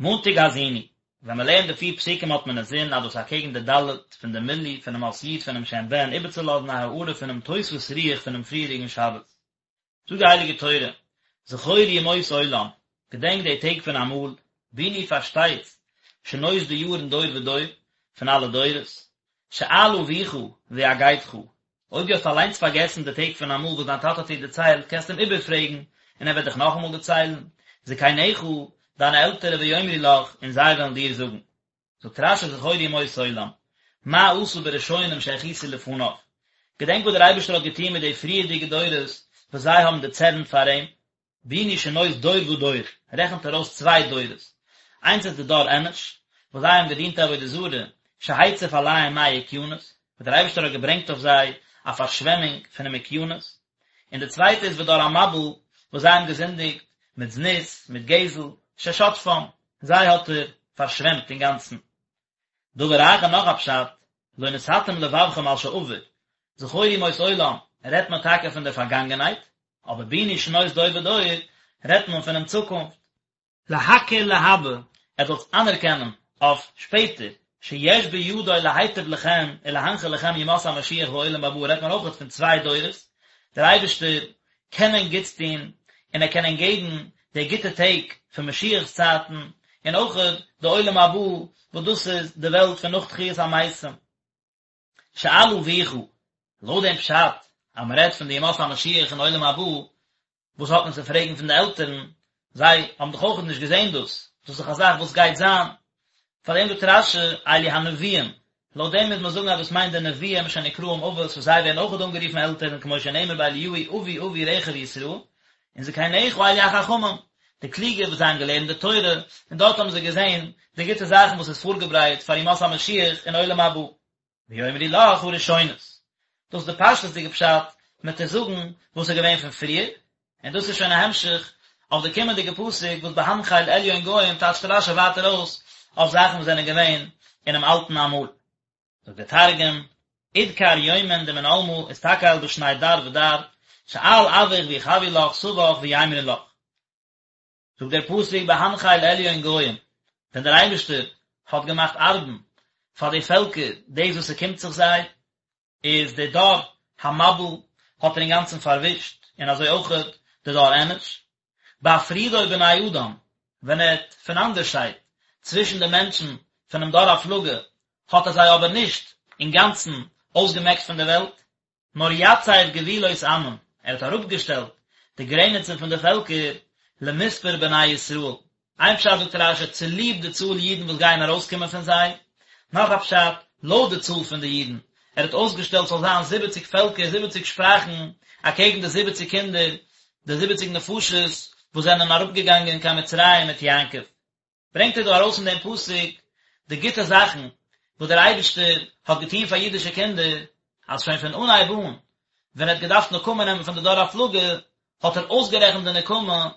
מאנטאג האזינו, ווען מען לערנט די פיר פסוקים האט מען אינזין אז דאס אקעגן די ד' פון די מילוי פונעם אות י' פונעם שם בן איבערצולאזן א הארה פונעם תוספות רוח פונעם פריעריגן שבת. זאגט די הייליגע תורה, זכור ימות עולם, געדענק די טעג פון אמאל, בינו פארשטייט, שנות די יארן דור ודור, פון אלע דורות, שאל אביך ויגדך, אויב דו האסט אליינס פארגעסן די טעג פון אמאל וואס דיין טאטע האט דיר דערציילט, קענסטו אים איבערפרעגן, און ער וועט דיך נאכאמאל דערציילן, זקניך, דיינע עלטערע ויאמרו לך, און זיי וועלן דיר זאגן. זאגט רש"י זכור ימות עולם, מה עשה בראשונים שהכעיסו לפניו, געדענק וואס דער אייבערשטער האט געטון מיט די פריערדיגע דורות וואס זיי האבן דערצערנט פאר אים, בינו שנות דור ודור, רעכנט ער אויס צוויי דורות, איינס איז די דור אנוש, וואס זיי האבן געדינט עבודה זרה, שהציף עליהם מי אוקיינוס, וואס דער אייבערשטער האט געברענגט אויף זיי א פארשוועמונג פונעם אוקיינוס, און די צווייטע איז ודור המבול, וואס זיי האבן געזינדיגט מיט זנות, מיט גזל, ששטפם, זיי האט ער פארשוועמט אינגאנצן. דבר אחר נאך א פשט, לא נתתם לבבכם על שעבר, זכור ימות עולם, רעדט מען טאקע פון דער פארגאנגענהייט, אבער בינו שנות דור ודור, רעדט מען פונעם צוקונפט. להכיר להבא, עטס זאלטס אנערקענען אויף שפעטער, שיש בידו להיטיב לכם ולהנחיל לכם ימות המשיח והעולם הבא רעדט מען אויכעט פון צוויי דורות, דער אייבערשטער קען ענק גוטס טון און ער קען ענק געבן די גוטע טעג פון משיח'ס צייטן, און אויכעט די עולם הבא וואס דאס איז די וועלט פון נאך תחיית המתים. שאל אביך, לויט דעם פשט אז מען רעדט פון די ימות המשיח און עולם הבא, וואס האט מען צו פרעגן פון די עלטערן, זיי האבן דאך אויך נישט געזען דאס, דאס איז דאך א זאך וואס גייט זיין, פאר דעם זאגט רש"י, אלו הנביאים, לויט דעם מוז מען זאגן אז דאס מיינט די נביאים שנקראים אבות וואס זיי ווערן אויך אנגערופן עלטערן כמו שנאמר באליהו אבי אבי רכב ישראל, און זקניך אלו החכמים, די קלוגע וואס זיי האבן געלערנט די תורה, און דארט האבן זיי געזען די גוטע זאכן וואס איז פארגעברייט פאר ימות המשיח און עולם הבא. ויאמרו לך הראשונות. דאס איז די פשטות'דיגע פשט, מען טוט זאגן וואס איז געווען פון פריער, און דאס איז שוין א המשך אויף די קומענדיגע פסוק וואס בהנחל עליון גוים טייטשט רש"י ווייטער אויס אויף זאכן וואס זענען געווען אינעם אלטן אמאל. זאגט דער תרגום, אדכר יומין דמן עלמא אסתכל בשני דר ודר, שאל אבוך ויחוו לך סבך ויימרון לך. זאגט דער פסוק בהנחל עליון גוים, ווען דער אייבערשטער האט געמאכט ארבן פאר די פעלקער דאס וואס ס'קומט זיך זיי, איז די דור המבול האט ער אינגאנצן פארווישט, און אזוי אויכעט די דור אנוש. בהפרידו בני אדם, ווען ער האט פונאנדערשיידט צווישן די מענטשן פונעם דור הפלגה, האט ער זיי אבער נישט אינגאנצן אויסגעמעקט פון דער וועלט, נאר יצב גבולות עמים, ער האט אראפגעשטעלט די גרעניצן פון די פעלקער, למספר בני ישראל, איין פשט זאגט רש"י צוליב די צאל אידן וואס גייען ארויסקומען פון זיי, נאך א פשט, לויט די צאל פון די אידן, ער האט אויסגעשטעלט ס'זאל זיין זיבעציג פעלקער, זיבעציג שפראכן, אקעגן די זיבעציג קינדער, די זיבעציג נפשות וואס זענען אראפגעגאנגען קיין מצרים מיט יעקב. ברענגט ער דא ארויס אין דעם פסוק די גוטע זאכן וואס דער אייבערשטער האט געטון פאר אידישע קינדער, אז שוין פון אנהייב אן, ווען ער האט געדארפט נקמה נעמען פון די דור הפלגה, האט ער אויסגערעכנט די נקמה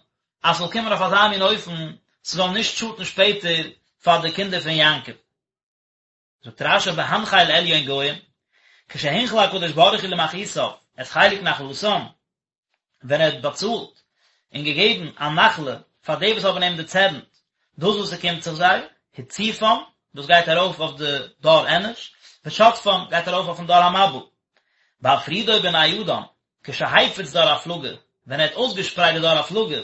אז ס'זאל קומען אויף אזא מין אופן, ס'זאל נישט שאטן שפעטער פאר די קינדער פון יעקב. זאגט רש"י בהנחל עליון גוים, כשהנחיל הקדוש ברוך הוא למחעיתיו את חלק נחלתם, ווען ער האט באצאלט און געגעבן א נחלה פאר די וואס האבן אים דערצערנט דאס וואס ס'קומט זיך זיי, הציפם, דאס גייט ארויף אויף די דור אנוש, ושטפם, גייט ארויף אויפן דור המבול. בהפרידו בני אדם, כשהפיץ דור הפלגה, ווען ער האט אויסגעשפרייט די דור הפלגה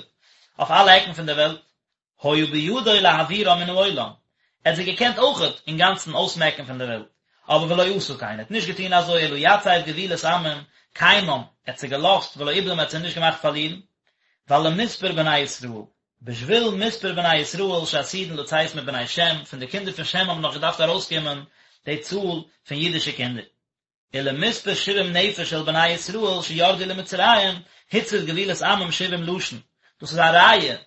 אויף אלע עקן פון דער וועלט, היה בידו להעבירם מן העולם, ער האט זיי געקענט אויכעט אינגאנצן אויסמעקן פון דער וועלט, אבער ולא עשה כן, ער האט נישט געטון אזוי, אלא יצב גבולות עמים, קיימם, ער האט זיי געלאזט, ולא איבדם, ער האט זיי נישט געמאכט פארלירן, ווייל למספר בני ישראל, בשביל מספר בני ישראל שעתידין לצאת מבני שם, פון די קינדער פון שם האבן נאך געדארפט ארויסקומען די צאל פון אידישע קינדער. ולמספר שבעים נפש של בני ישראל שירדו למצרים, הציב גבולות עמים שבעים לשון, דאס איז א ראיה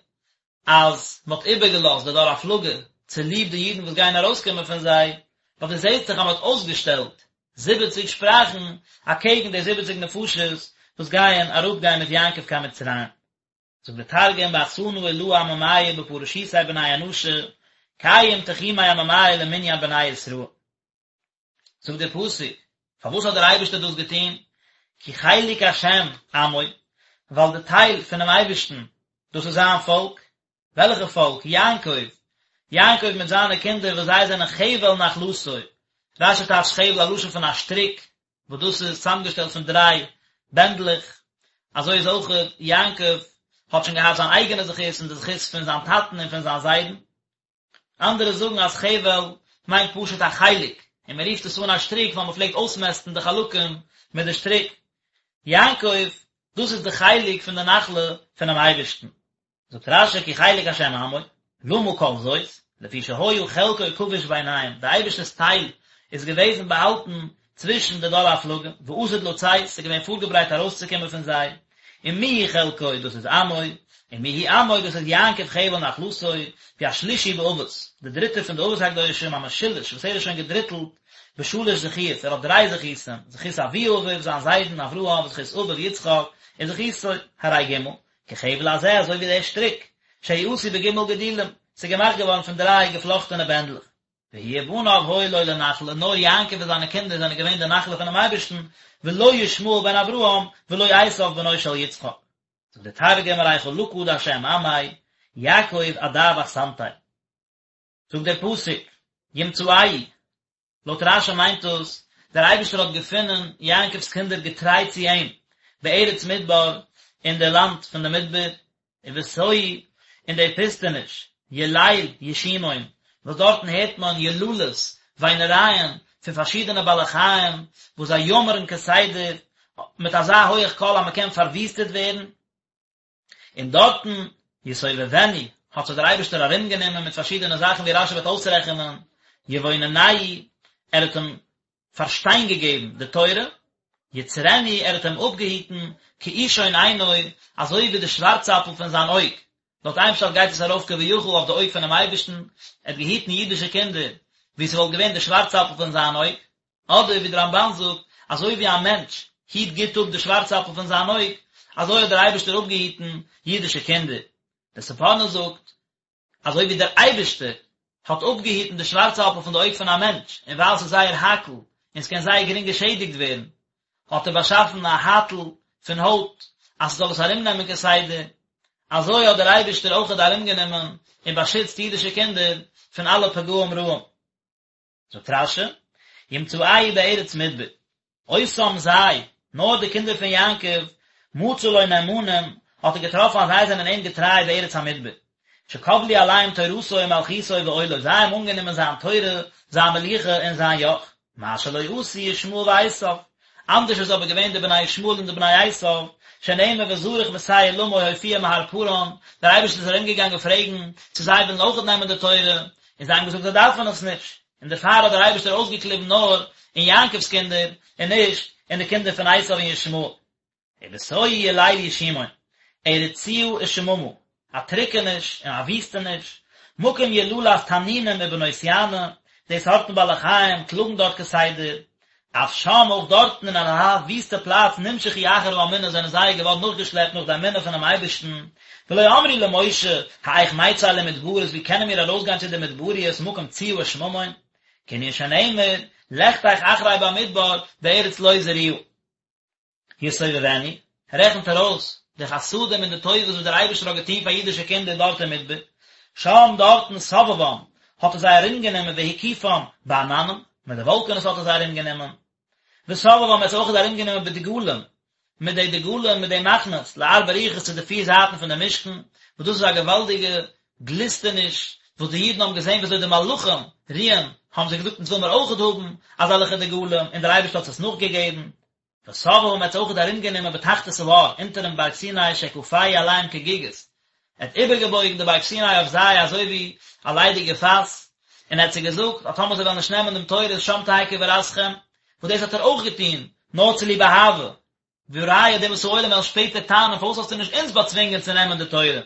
אז מען האט איבערגעלאזט די דור הפלגה צוליב די אידן וואס גייען ארויסקומען פון זיי, ווייל דו זעסט דאך אז מען האט אויסגעשטעלט זיבעציג שפראכן אקעגן די זיבעציג נפשות וואס גייען אראפגיין מיט יעקב קיין מצרים. זאגט דער תרגום באחסנא עלאה עממיא בפרשיתיה בני אנשא, קיים תחומי עממיא למנין בני ישראל. זאגט דער פסוק, פארוואס האט דער אייבערשטער דאס געטון? כי חלק השם עמו, ווייל די טייל פונעם אייבערשטן, דאס איז זיין פאלק, וועלכע פאלק? יעקב! יעקב מיט זיינע קינדער וואס זיי זענען חבל נחלתו, רש"י טייטשט חבל א לשון פון א שטריק, וואס דאס איז צוזאמגעשטעלט פון דריי בענדלעך, אזוי איז אויך יעקב האט שוין געהאט זיין אייגענע זכות און די זכות פון זיין טאטן און פון זיין זיידן. אנדערע זאגן אז חבל מיינט פשוט א חלק, און מען רופט עס אן א שטריק ווייל מען פלעגט אויסמעסטן די חלקים מיט די שטריק. יעקב, דאס איז די חלק פון די נחלה פונעם אייבערשטן. זאגט רש"י כי חלק השם עמו, למה כל זאת, לפי שהיה חלקו כבוש ביניהם, די אייבערשטער'ס טייל איז געוועזן באהאלטן צווישן די דור הפלגה, ועתיד לצאת, ס'איז געווען פארגעברייט ארויסצוקומען פון זיי, ומי הוא חלקו, דאס איז עמו, ומי הוא עמו, דאס איז יעקב חבל נחלתו, והוא השלישי באבות, די דריטע פון די אבות הקדושים, המשולש, וואס ער איז שוין געדריטלט, בשלש זכיות, ער האט דריי זכותים, זכות אבי אביו, זיין זיידן אברהם, זכות אביו יצחק, און זכותו, הרי ג', כחבל הזה, אזוי ווי דער שטריק, שהוא עשוי בג' גדילים, ס'איז געמאכט געווארן פון דריי געפלאכטענע בענדלעך. והוא ובניו היו לו לנחלה, נאר יעקב און זיינע קינדער זענען געווען די נחלה פונעם אייבערשטן, ולא ישמעאל בן אברהם, ולא עשיו בנו של יצחק. זאגט דער תרגום, ארי חלקא דהשם עמיה, יעקב עדב אחסנתיה. זאגט דער פסוק, ימצאהו, לויט רש"י מיינט דאס, דער אייבערשטער האט געפונען יעקב'ס קינדער געטריי צו אים, בארץ מדבר, אין די לאנד פון די מדבר, ובתוהו, אין די פוסטעניש, יליל ישימון, וואס דארטן הערט מען יללות, וויינערייען, פון פארשידענע בעלי חיים, וואס זיי יאמערן כסדר, מיט אזא הויעך קול אז מען קען פארוויסטעט ווערן. און דארטן, יסובבנו, האט זיך דער אייבערשטער ארומגענומען מיט פארשידענע זאכן ווי רש"י וועט אויסרעכענען, יבוננהו, ער האט אים פארשטיין געגעבן די תורה, יצרנו, ער האט אים אפגעהיטן, כאישון עינו, אזוי ווי די שווארצאפל פון זיין אויג, לויט איין פשט גייט עס ארויף כביכול אויף די אויג פונעם אייבערשטן, ער האט געהיטן אידישע קינדער ווי ס'וואלט געווען די שווארצאפל פון זיין אויג, אדער ווי דער רמב"ן זאגט, אזוי ווי א מענטש היט גוט אפ די שווארצאפל פון זיין אויג, אזוי האט דער אייבערשטער אפגעהיטן אידישע קינדער. דער ספורנו זאגט, אזוי ווי דער אייבערשטער האט אפגעהיטן די שווארצאפל פון די אויג פון א מענטש, און ווייל ס'איז זייער הייקל און ס'קען זייער גרינג געשעדיגט ווערן, האט ער באשאפן א הייטל פון הויט אז ס'זאל עס ארומנעמען כסדר, אזוי האט דער אייבערשטער אויכעט ארומגענומען און באשיצט אידישע קינדער פון אלע פגעים רעים. זאגט רש"י, ימצאהו בארץ מדבר, אותם זיי, נאר די קינדער פון יעקב, מצא לו נאמנים, האט ער געטראפן אז זיי זענען אים געטריי בארץ המדבר, שקבלו עליהם תורתו ומלכותו ועולו, זיי האבן אנגענומען זיין תורה, זיין מלוכה און זיין יאך, מה שלא עשו ישמעאל ועשיו, אנדערש איז אבער געווען די בני ישמעאל און די בני עשיו, שנאמר וזרח משעיר למו הופיע מהר פארן, דער אייבערשטער איז ארומגעגאנגען פרעגן צו זיי ווילן אויכעט נעמען די תורה, און זיי האבן געזאגט זיי דארפן עס נישט, און דערפאר האט דער אייבערשטער אויסגעקליבן נאר אין יעקב'ס קינדער, און נישט אין די קינדער פון עשיו און ישמעאל. ובתוהו יליל ישימון, ארץ ציה ושממה, א טריקעניש און א וויסטעניש, מקום יללת תנינים ובנות יענה, די סארטן בעלי חיים קלאגן דארט כסדר, אף שם אויך דארטן אין אזא וויסטע פלאץ נמשכו אחר האמונה זענען זיי געווארן נאכגעשלעפט נאך די אמונה פונעם אייבערשטן, ולא אמרו למשה, האיך נצא למדברות ווי קענען מיר ארויסגיין צו די מדבריות מקום ציה ושממון, כענין שנאמר, לכתך אחרי במדבר בארץ לא זרועה. יסובבנו, רעכנט ער אויס די חסדים און די טובות וואס דער אייבערשטער האט געטון פאר אידישע קינדער דארט אין מדבר, שם דארטן סבבם, האט ער זיי ארומגענומען והקיפם בעננים, מיט די וואלקענעס האט ער זיי ארומגענומען, וסבבם ער האט זיי אויך ארומגענומען בדגלים, מיט די דגלים מיט די מחנות, לארבע רוחות צו די פיר זייטן פון די משכן, וואס דאס איז א געוואלדיגע גליסטעניש וואס די אידן האבן געזען ווי אזוי די מלאכים רוען, האבן זיי געזאגט אונז וויל מיר אויכעט האבן אזעלכע דגלים, און דער אייבערשטער האט עס נאכגעגעבן. וסבבם ער האט זיי אויכעט ארומגענומען בתחתית ההר, אונטערן בארג סיני שכפהו עליהם כגיגית, ער האט איבערגעבויגן די בארג סיני אויף זיי אזוי ווי א ליידיגע פאס, און ער האט זיי געזאגט אז טאמער זיי וועלן נישט נעמען דעם תורה איז שם תהא קבורתכם, וואס דאס האט ער אויך געטון נאר צוליב אהבה, והראיה די אומות העולם וועלן שפעטער טענה'ן פארוואס האסטו נישט אונז באצווינגען צו נעמען די תורה.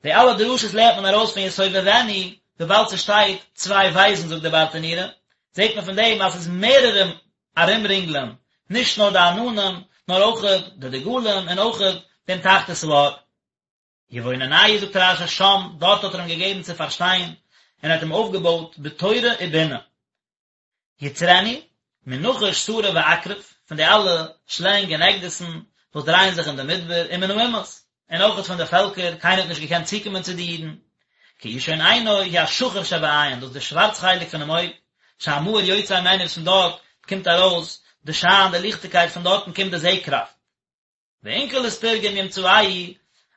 די אלע דרשות לערנט מען ארויס פון יסובבנו, וויבאלד ס'שטייט צוויי בית'ן זאגט דער ברטנורא, זעט מען פון דעם אז ס'איז מערערע ארומרינגלען, נישט נאר די עננים, נאר אויכעט די דגלים און אויכעט דעם תחתית ההר. יבוננהו זאגט רש"י שם, דארט האט ער אים געגעבן צו פארשטיין, און ער האט אים אויפגעבויט בתורה ובינה. יצרנו, מנחש שרף ועקרב, פון די אלע שלענג און עקדיסן וואס דרייען זיך אין די מדבר, ומן האומות, און אויכעט פון די פעלקער, קיינער האט נישט געקענט צוקומען צו די אידן. כאישון עינו הוא השחור שבעין, דאס איז די שווארץ חלק פונעם אויג, שהמאור יוצא ממנו וואס פון דארט קומט ארויס די שיין, די ליכטיגקייט, פון דארטן קומט די זע-קראפט. ואונקלוס תרגם ימצאהו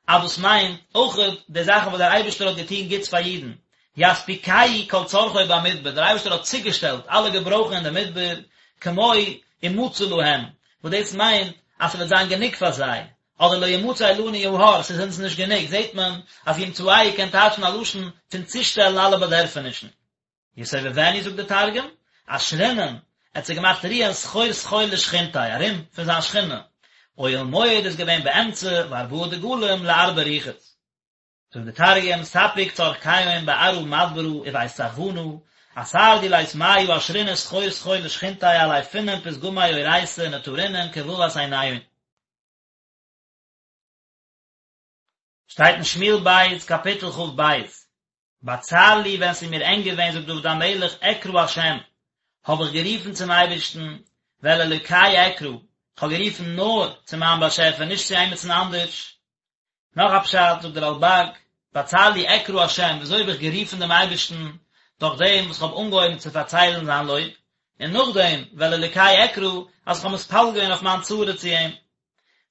אז דאס מיינט אויכעט די זאכן וואס דער אייבערשטער האט געטון גוטס פאר אידן, יספיקהו כל צרכו במדבר, דער אייבערשטער האט צוגעשטעלט אלע געברויכן אין די מדבר, כמו ומצא להם, וואס דאס מיינט אז ס'וועט זיין גענוג פאר זיי, אדער לא ימצא לנו ההר, ס'איז אונז נישט גענוג, זעט מען אז ימצאהו קען טייטשן א לשון פון צושטעלן אלע באדערפענישן. יסובבנו זאגט דער תרגום, אשרינן, ער האט זיי געמאכט רוען סחור סחור לשכינתיה, ארום פון זיין שכינה, אוהל מועד איז געווען באמצע וארבעה דגלים לארבע רוחות. זאגט דער תרגום, ספק צרכיהון בארעא מדברא ובית סחבנא, אתר דלית מיא אשרינן סחור סחור לשכינתיה עלי פונן פתגמי אורייתא נטרינון כותבת עיניהון. שטייט אין שמואל ב' קאפיטל כ"ב, בצר לי ווען ס'איז מיר ענג געווען זאגט דוד המלך אקרא השם, האב איך גערופן צום אייבערשטן, ואל אלוקי אקרא, כ'האב גערופן נאר צו מיין באשעפער נישט צו עימיצן אנדערש. נאך א פשט זאגט דער רלב"ג, בצר לי אקרא השם, וויאזוי האב איך גערופן דעם אייבערשטן, דורך דעם וואס כ'האב אנגעהויבן צו פארציילן זיין לויב, און נאכדעם ואל אלוקי אקרא, אז כ'האב מתפלל געווען אויף מיין צרה צו אים.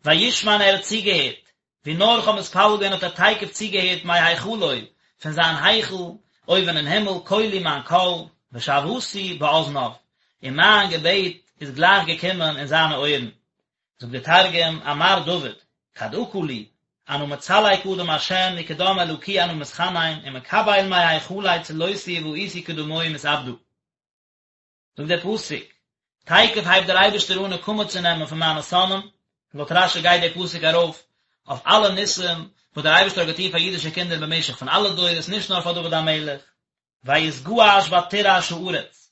וישמע ער האט צוגעהערט, ווי נאר איך האב מתפלל געווען האט ער תיכף צוגעהערט מהיכלו, פון זיין היכל, אויבן אין הימל, קולי מיין קול, ושוועתי באזניו, און מיין געבעט איז גלייך געקומען אין זיינע אויערן. זאגט דער תרגום, אמר דוד, כד עקא לי, אנא מצלי קדם השם וקדם אלקי אנא מתחנן, ומקבל מהיכליה צלותי ובאיתי קדמוהי מתעבדא. זאגט דער פסוק, תיכף הייבט דער אייבערשטער אן נקמה צו נעמען פון מיינע שונאים, לויט רש"י גייט דער פסוק ארויף אויף אלע ניסים וואס דער אייבערשטער האט געטון פאר אידישע קינדער במשך פון אלע דורות, נישט נאר פאר דוד המלך, ויתגעש ותרעש הארץ,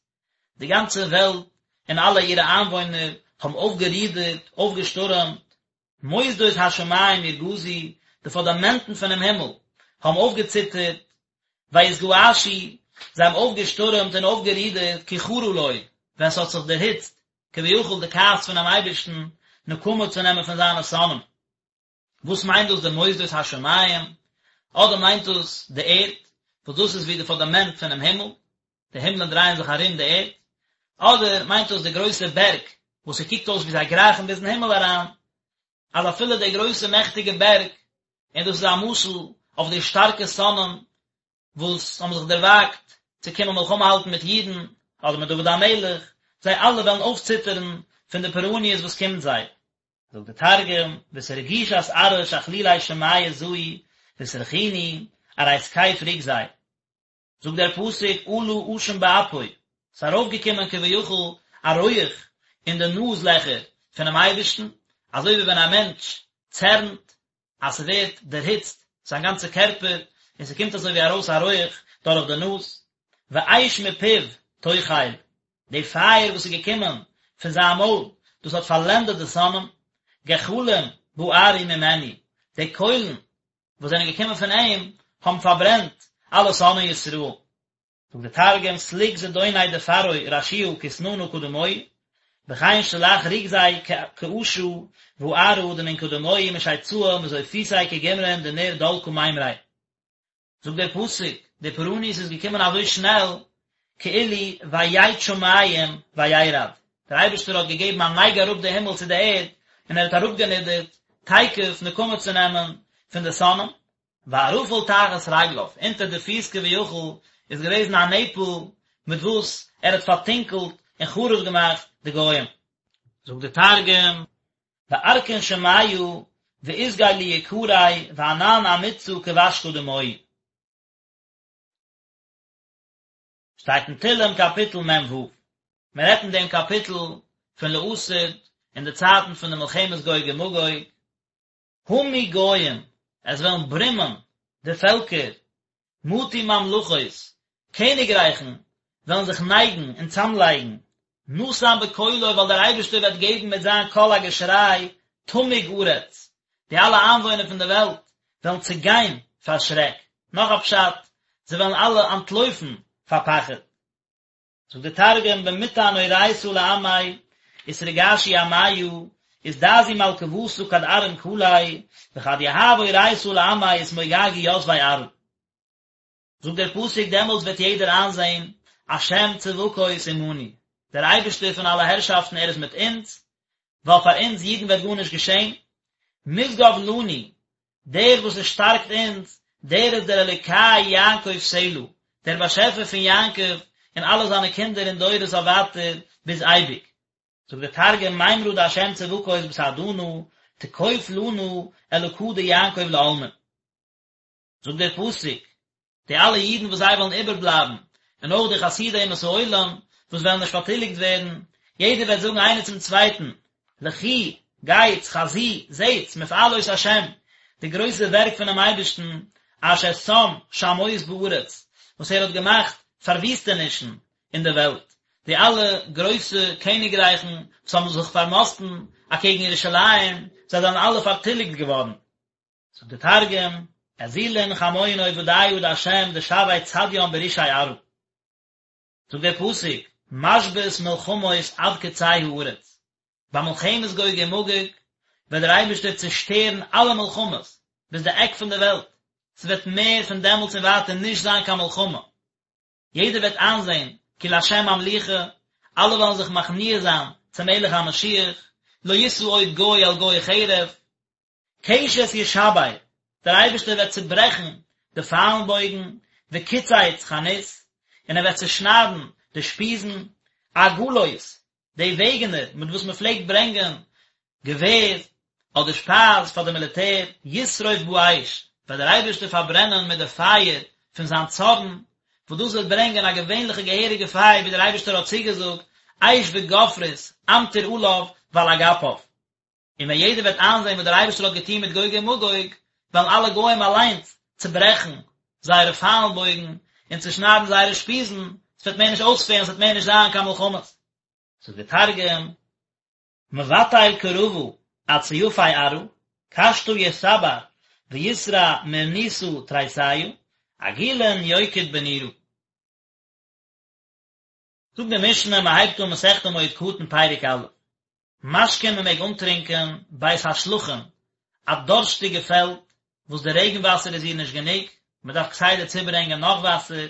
די גאנצע וועלט און אלע אירע איינוואוינער האבן אויפגערודערט, אויפגעשטורעמט, מוסדות השמים ירגזו, די פונדאמענטן פונעם הימל האבן אויפגעציטערט, ויתגעשו, זיי האבן אויפגעשטורעמט און אויפגערודערט, כי חרה לו, ווען ס'האט זיך דערהיצט, כביכול די כעס פונעם אייבערשטן, נקמה צו נעמען פון זיינע שונאים. וואס מיינט דאס די מוסדות השמים? אדער מיינט דאס די ערד, וואס דאס איז ווי די פונדאמענט פונעם הימל, די הימלען דרייען זיך ארום די ערד, אדער מיינט דאס די גרויסע בערג וואס ס'קוקט אויס ווי זיי גרייכן ביזן הימל אריין, אז אפילו די גרויסע מעכטיגע בערג, און דאס איז א משל אויף די שטארקע שונאים וואס האבן זיך דערוואגט צו קומען מלחמה האלטן מיט אידן, אדער מיט דוד המלך, זיי אלע וועלן אויפציטערן פון די פורעניות וואס קומט זיי. זאגט דער תרגום, ואתרגישת ארעא שכלולי שמיא זעו ואתרכינו ארי תקיף רוגזיה. זאגט דער פסוק עלה עשן באפו, ס'איז ארויפגעקומען כביכול א רויעך אין די נאז לעכער פונעם אייבערשטן, אזוי ווי ווען א מענטש צערנט אז ס'ווערט דערהיצט זיין גאנצע קערפער און ס'קומט אזוי ווי ארויס א רויעך דורך די נאז, ואש מפיו תאכל, די פייער וואס איז געקומען פון זיין מויל, דאס האט פארלענדעט די שונאים, גחלים בערו ממנו, די קוילן וואס זענען געקומען פון אים האבן פארברענט אלע שונאי ישראל. זאגט דער תרגום, סליק זדוניה דפרעא רשיעא כתננא קדמוהי, וכן שלח רוגזיה כעשא וארעא דמן קדמוהי משיצאה מזופיתיה כגמרין דנר דלקא מימריה. זאגט דער פסוק, די פורעניות איז געקומען אזוי שנעל, כאילו ויט שמים וירד, דער אייבערשטער האט געגעבן א נייג אראפ די הימל צו די ערד, און ער האט אראפגענידערט תיכף נקמה צו נעמען פון די שונאים, וערפל תחת רגליו, אונטער די פיס כביכול איז געוועזן א נעפל מיט וואס ער האט פארטונקלט און חרוב געמאכט די גוים. זאגט דער תרגום, וארכין שמיא ואתגי ליקריה וענן אמיצא כבשקא דמואי. שטייט אין תהלים קאפיטל מ"ו, מען רעדט אין דעם קאפיטל פון לעתיד אין די צייטן פון די מלחמת גוג ומגוג, המו גוים, עס וועלן ברומען די פעלקער, מטו ממלכות, קעניגרייכן וועלן זיך נייגן און צאמלייגן, נתן בקולו ווייל דער אייבערשטער וועט געבן מיט זיין קול א געשריי, תמוג ארץ, די אלע איינוואוינער פון דער וועלט וועלן צעגיין פאר שרעק, נאך א פשט, זיי וועלן אלע אנטלויפן פאר פחד. זאגט דער תרגום במטען אורייתא לעמיה אתרגשו עמיא אזדעזעו מלכוותא כד ארים קליה וכד יהב אורייתא לעמיה אתמוגגו יתבי ארעא. זאגט דער פסוק דעמאלטס וועט יעדער איינזען, השם צבקות עמנו, דער אייבערשטער פון אלע הערשאפטן ער איז מיט אונז, ווייל פאר אונז אידן וועט גארנישט געשען, משגב לנו, דער וואס עס שטארקט אונז, דער איז דער אלוקי יעקב סלה, דער באשעפער פון יעקב און אלע זיינע קינדער אין דורות אויף ווייטער ביז אייביג. זאגט דער תרגום, מימרא דהשם צבקות בסעדנא, תקוף לנא אלקא דיעקב לעלמין. זאגט דער פסוק, די אלע אידן וואס זיי וועלן איבערבלייבן, און אויך די חסידי אומות העולם וואס וועלן נישט פארטיליגט ווערן, יעדער וועט זאגן איינער צום צווייטן, לכו, גייטס, חזו, זעטס, מפעלות השם, די גרויסע ווערק פונעם אייבערשטן, אשר שם שמות בארץ, וואס ער האט געמאכט פארוויסטענישן אין דער וועלט, די אלע גרויסע קעניגרייכן וואס האבן זיך פארמאסטן אקעגן ירושלים, זיי זענען אלע פארטיליגט געווארן. זאגט דער תרגום, אזילון חמון עובדיא דהשם דשוי צדיין ברישי ארעא. זאגט דער פסוק, משבית מלחמות עד קצה הארץ, ביי מלחמת גוג ומגוג וועט דער אייבערשטער צעשטערן אלע מלחמות ביז די עק פון די וועלט, ס'וועט מער פון דעמאלטס און ווייטער נישט זיין קיין מלחמה, יעדער וועט איינזען כי לה' המלוכה, אלע וועלן זיך מכניע זיין צום מלך המשיח, לא ישא עוד גוי אל גוי חרב, קשת ישבר, דער אייבערשטער וועט צעברעכן די פיילן בויגן, וקצץ חנית, און ער וועט צעשניידן די שפיזן, עגלות, די וועגענער מיט וואס מען פלעגט ברענגען געווער אדער שפייז פאר די מיליטער, ישרוף באש, וועט דער אייבערשטער פארברענען מיט די פייער פון זיין צארן, וואס דאס וועט ברענגען א געווענליכע געהעריגע פייער ווי דער אייבערשטער האט צוגעזאגט, אש וגופרית אמטיר עליו ועל אגפיו. און ווען יעדער וועט איינזען וואס דער אייבערשטער האט געטון מיט גוג און מגוג, וועלן אלע גוים אליינס צעברעכן זייערע פיילן בויגן און צעשניידן זייערע שפיזן, עס וועט מער נישט אויספעלן, עס וועט מער נישט זיין קיין מלחמות. זאגט דער תרגום, מבטל קרבא עד סיפי ארעא, קשתא יסבר ויסרע מרניתא תריסיא, עגילין יוקיד בנורא. זאגט די משנה, מען הייבט אן מסכת מועד קטן פרק א', משקין מען מעג אנטרינקען בית השלחין, א דארשטיגע פעלד וואס די רעגן וואסער איז איר נישט גענוג, מען דארף כסדר צוברענגען נאך וואסער,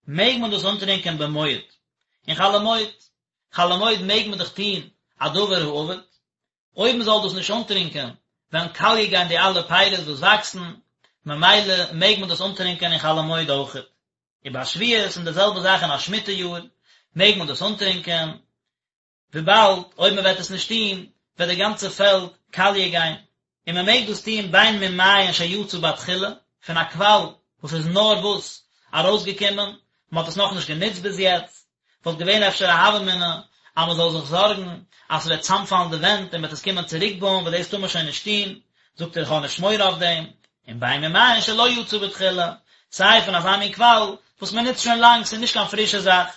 מעג מען דאס אנטרינקען במועד, אין חול המועד, חול המועד מעג מען דאך טון א דבר האבד, אויב מען זאל דאס נישט אנטרינקען וועלן קאליע גיין די אלע פירות וואס וואקסן, ממילא מעג מען דאס אנטרינקען אין חול המועד אויכעט. ובשביעית און די זעלבע זאך אין א שמיטה יאר, מעג מען דאס אנטרינקען, וויבאלד אויב מען וועט עס נישט טון וועט די גאנצע פעלד קאליע גיין, און מען מעג דאס טון בין ממעיין שיצא בתחילה, פון א קוואל וואס איז נארוואס ארויסגעקומען, מען האט עס נאכנישט גענוצט ביז יעצט, וואלט געווען אפשר א הוה אמינא אז מען זאל זיך זארגן אז ס'וועט צאמפאלן די ווענט און מען וועט עס קומען צוריקבויען וואס דאס טאר מען שוין נישט טון, זאגט ער איך האב נישט מורא אויף דעם, און בין ממעיין שלא יצא בתחילה, סיי פון אזא מין קוואל וואס מען נוצט שוין לאנג, ס'איז נישט קיין פרישע זאך.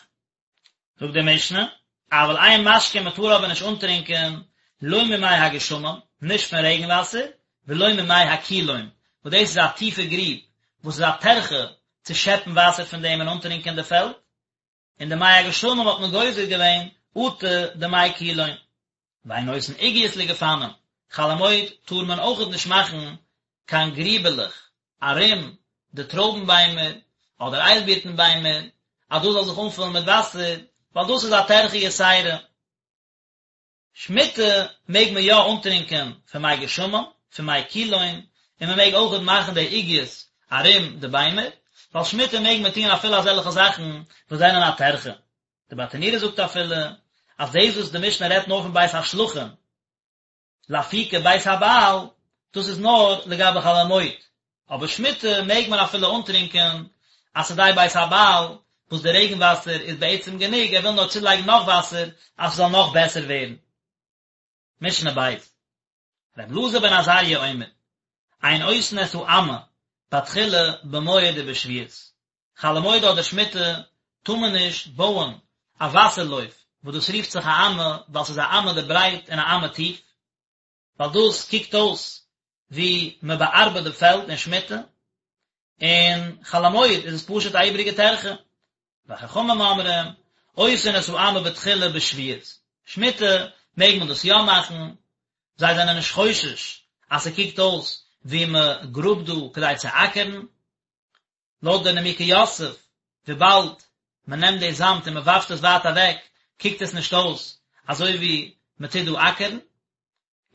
זאגט די משנה, אבל אין משקין מען טאר אבער נישט אנטרינקען לא ממי הגשמים, נישט פון רעגן וואסער, ולא ממי הקילון, וואס דאס איז א טיפע גריב וואס איז א טרחה צו שעפן וואסער פון דעם און אנטרינקען די פעלד, און די מי הגשמים האט מען גוזר געווען אטו די מי קילון. ואין עושין עוגיות לגפנים, חול המועד טאר מען אויכעט נישט מאכן קיין גריבעלעך ארום די טרויבן ביימער אדער איילבירטן ביימער אז דאס זאל זיך אנפולן מיט וואסער, ווייל דאס איז א טרחה יתירה. שמיטה מעג מען יא אנטרינקען פון מי גשמים, פון מי קילון, און מען מעג אויכעט מאכן די עוגיות ארום די ביימער, ווייל שמיטה מעג מען טון אפילו אזעלכע זאכן וואס זענען א טרחה. די ברטנורא זאגט אפילו אז דאס וואס די משנה רעדט נאר פון בית השלחין, לאפוקי בית הבעל, דאס איז נאר לגבי חול המועד, אבער שמיטה מעג מען אפילו אנטרינקען א שדה בית הבעל וואס די רעגן וואסער איז בעצם גענוג, ער וויל נאר צולייגן נאך וואסער אז ס'זאל נאך בעסער ווערן. משנה בית. ר' אלעזר בן עזריה אומר, אין עושין את האמה בתחילה במועד ובשביעית, חול המועד אדער שמיטה טאר מען נישט בויען א וואסער לויף וואס דאס רופט זיך א אמה ווייל ס'איז א אמה די ברייט און א אמה טיף, ווייל דאס קוקט אויס ווי מען באארבעט די פעלד אין שמיטה, און חול המועד איז עס פשוט א איבעריגע טרחה. וחכמים אומרים, עושין את האמה בתחילה בשביעית, שמיטה מעג מען דאס יא מאכן, זיי זענען נישט חושש אז ס'קוקט אויס ווי מען גראבט דא כדי צו אקערן. לויט די נימוקי יוסף, וויבאלד מען נעמט די זאמד און מען ווארפט עס ווייט אוועק, קוקט עס נישט אויס אזוי ווי מען טוט דא אקערן.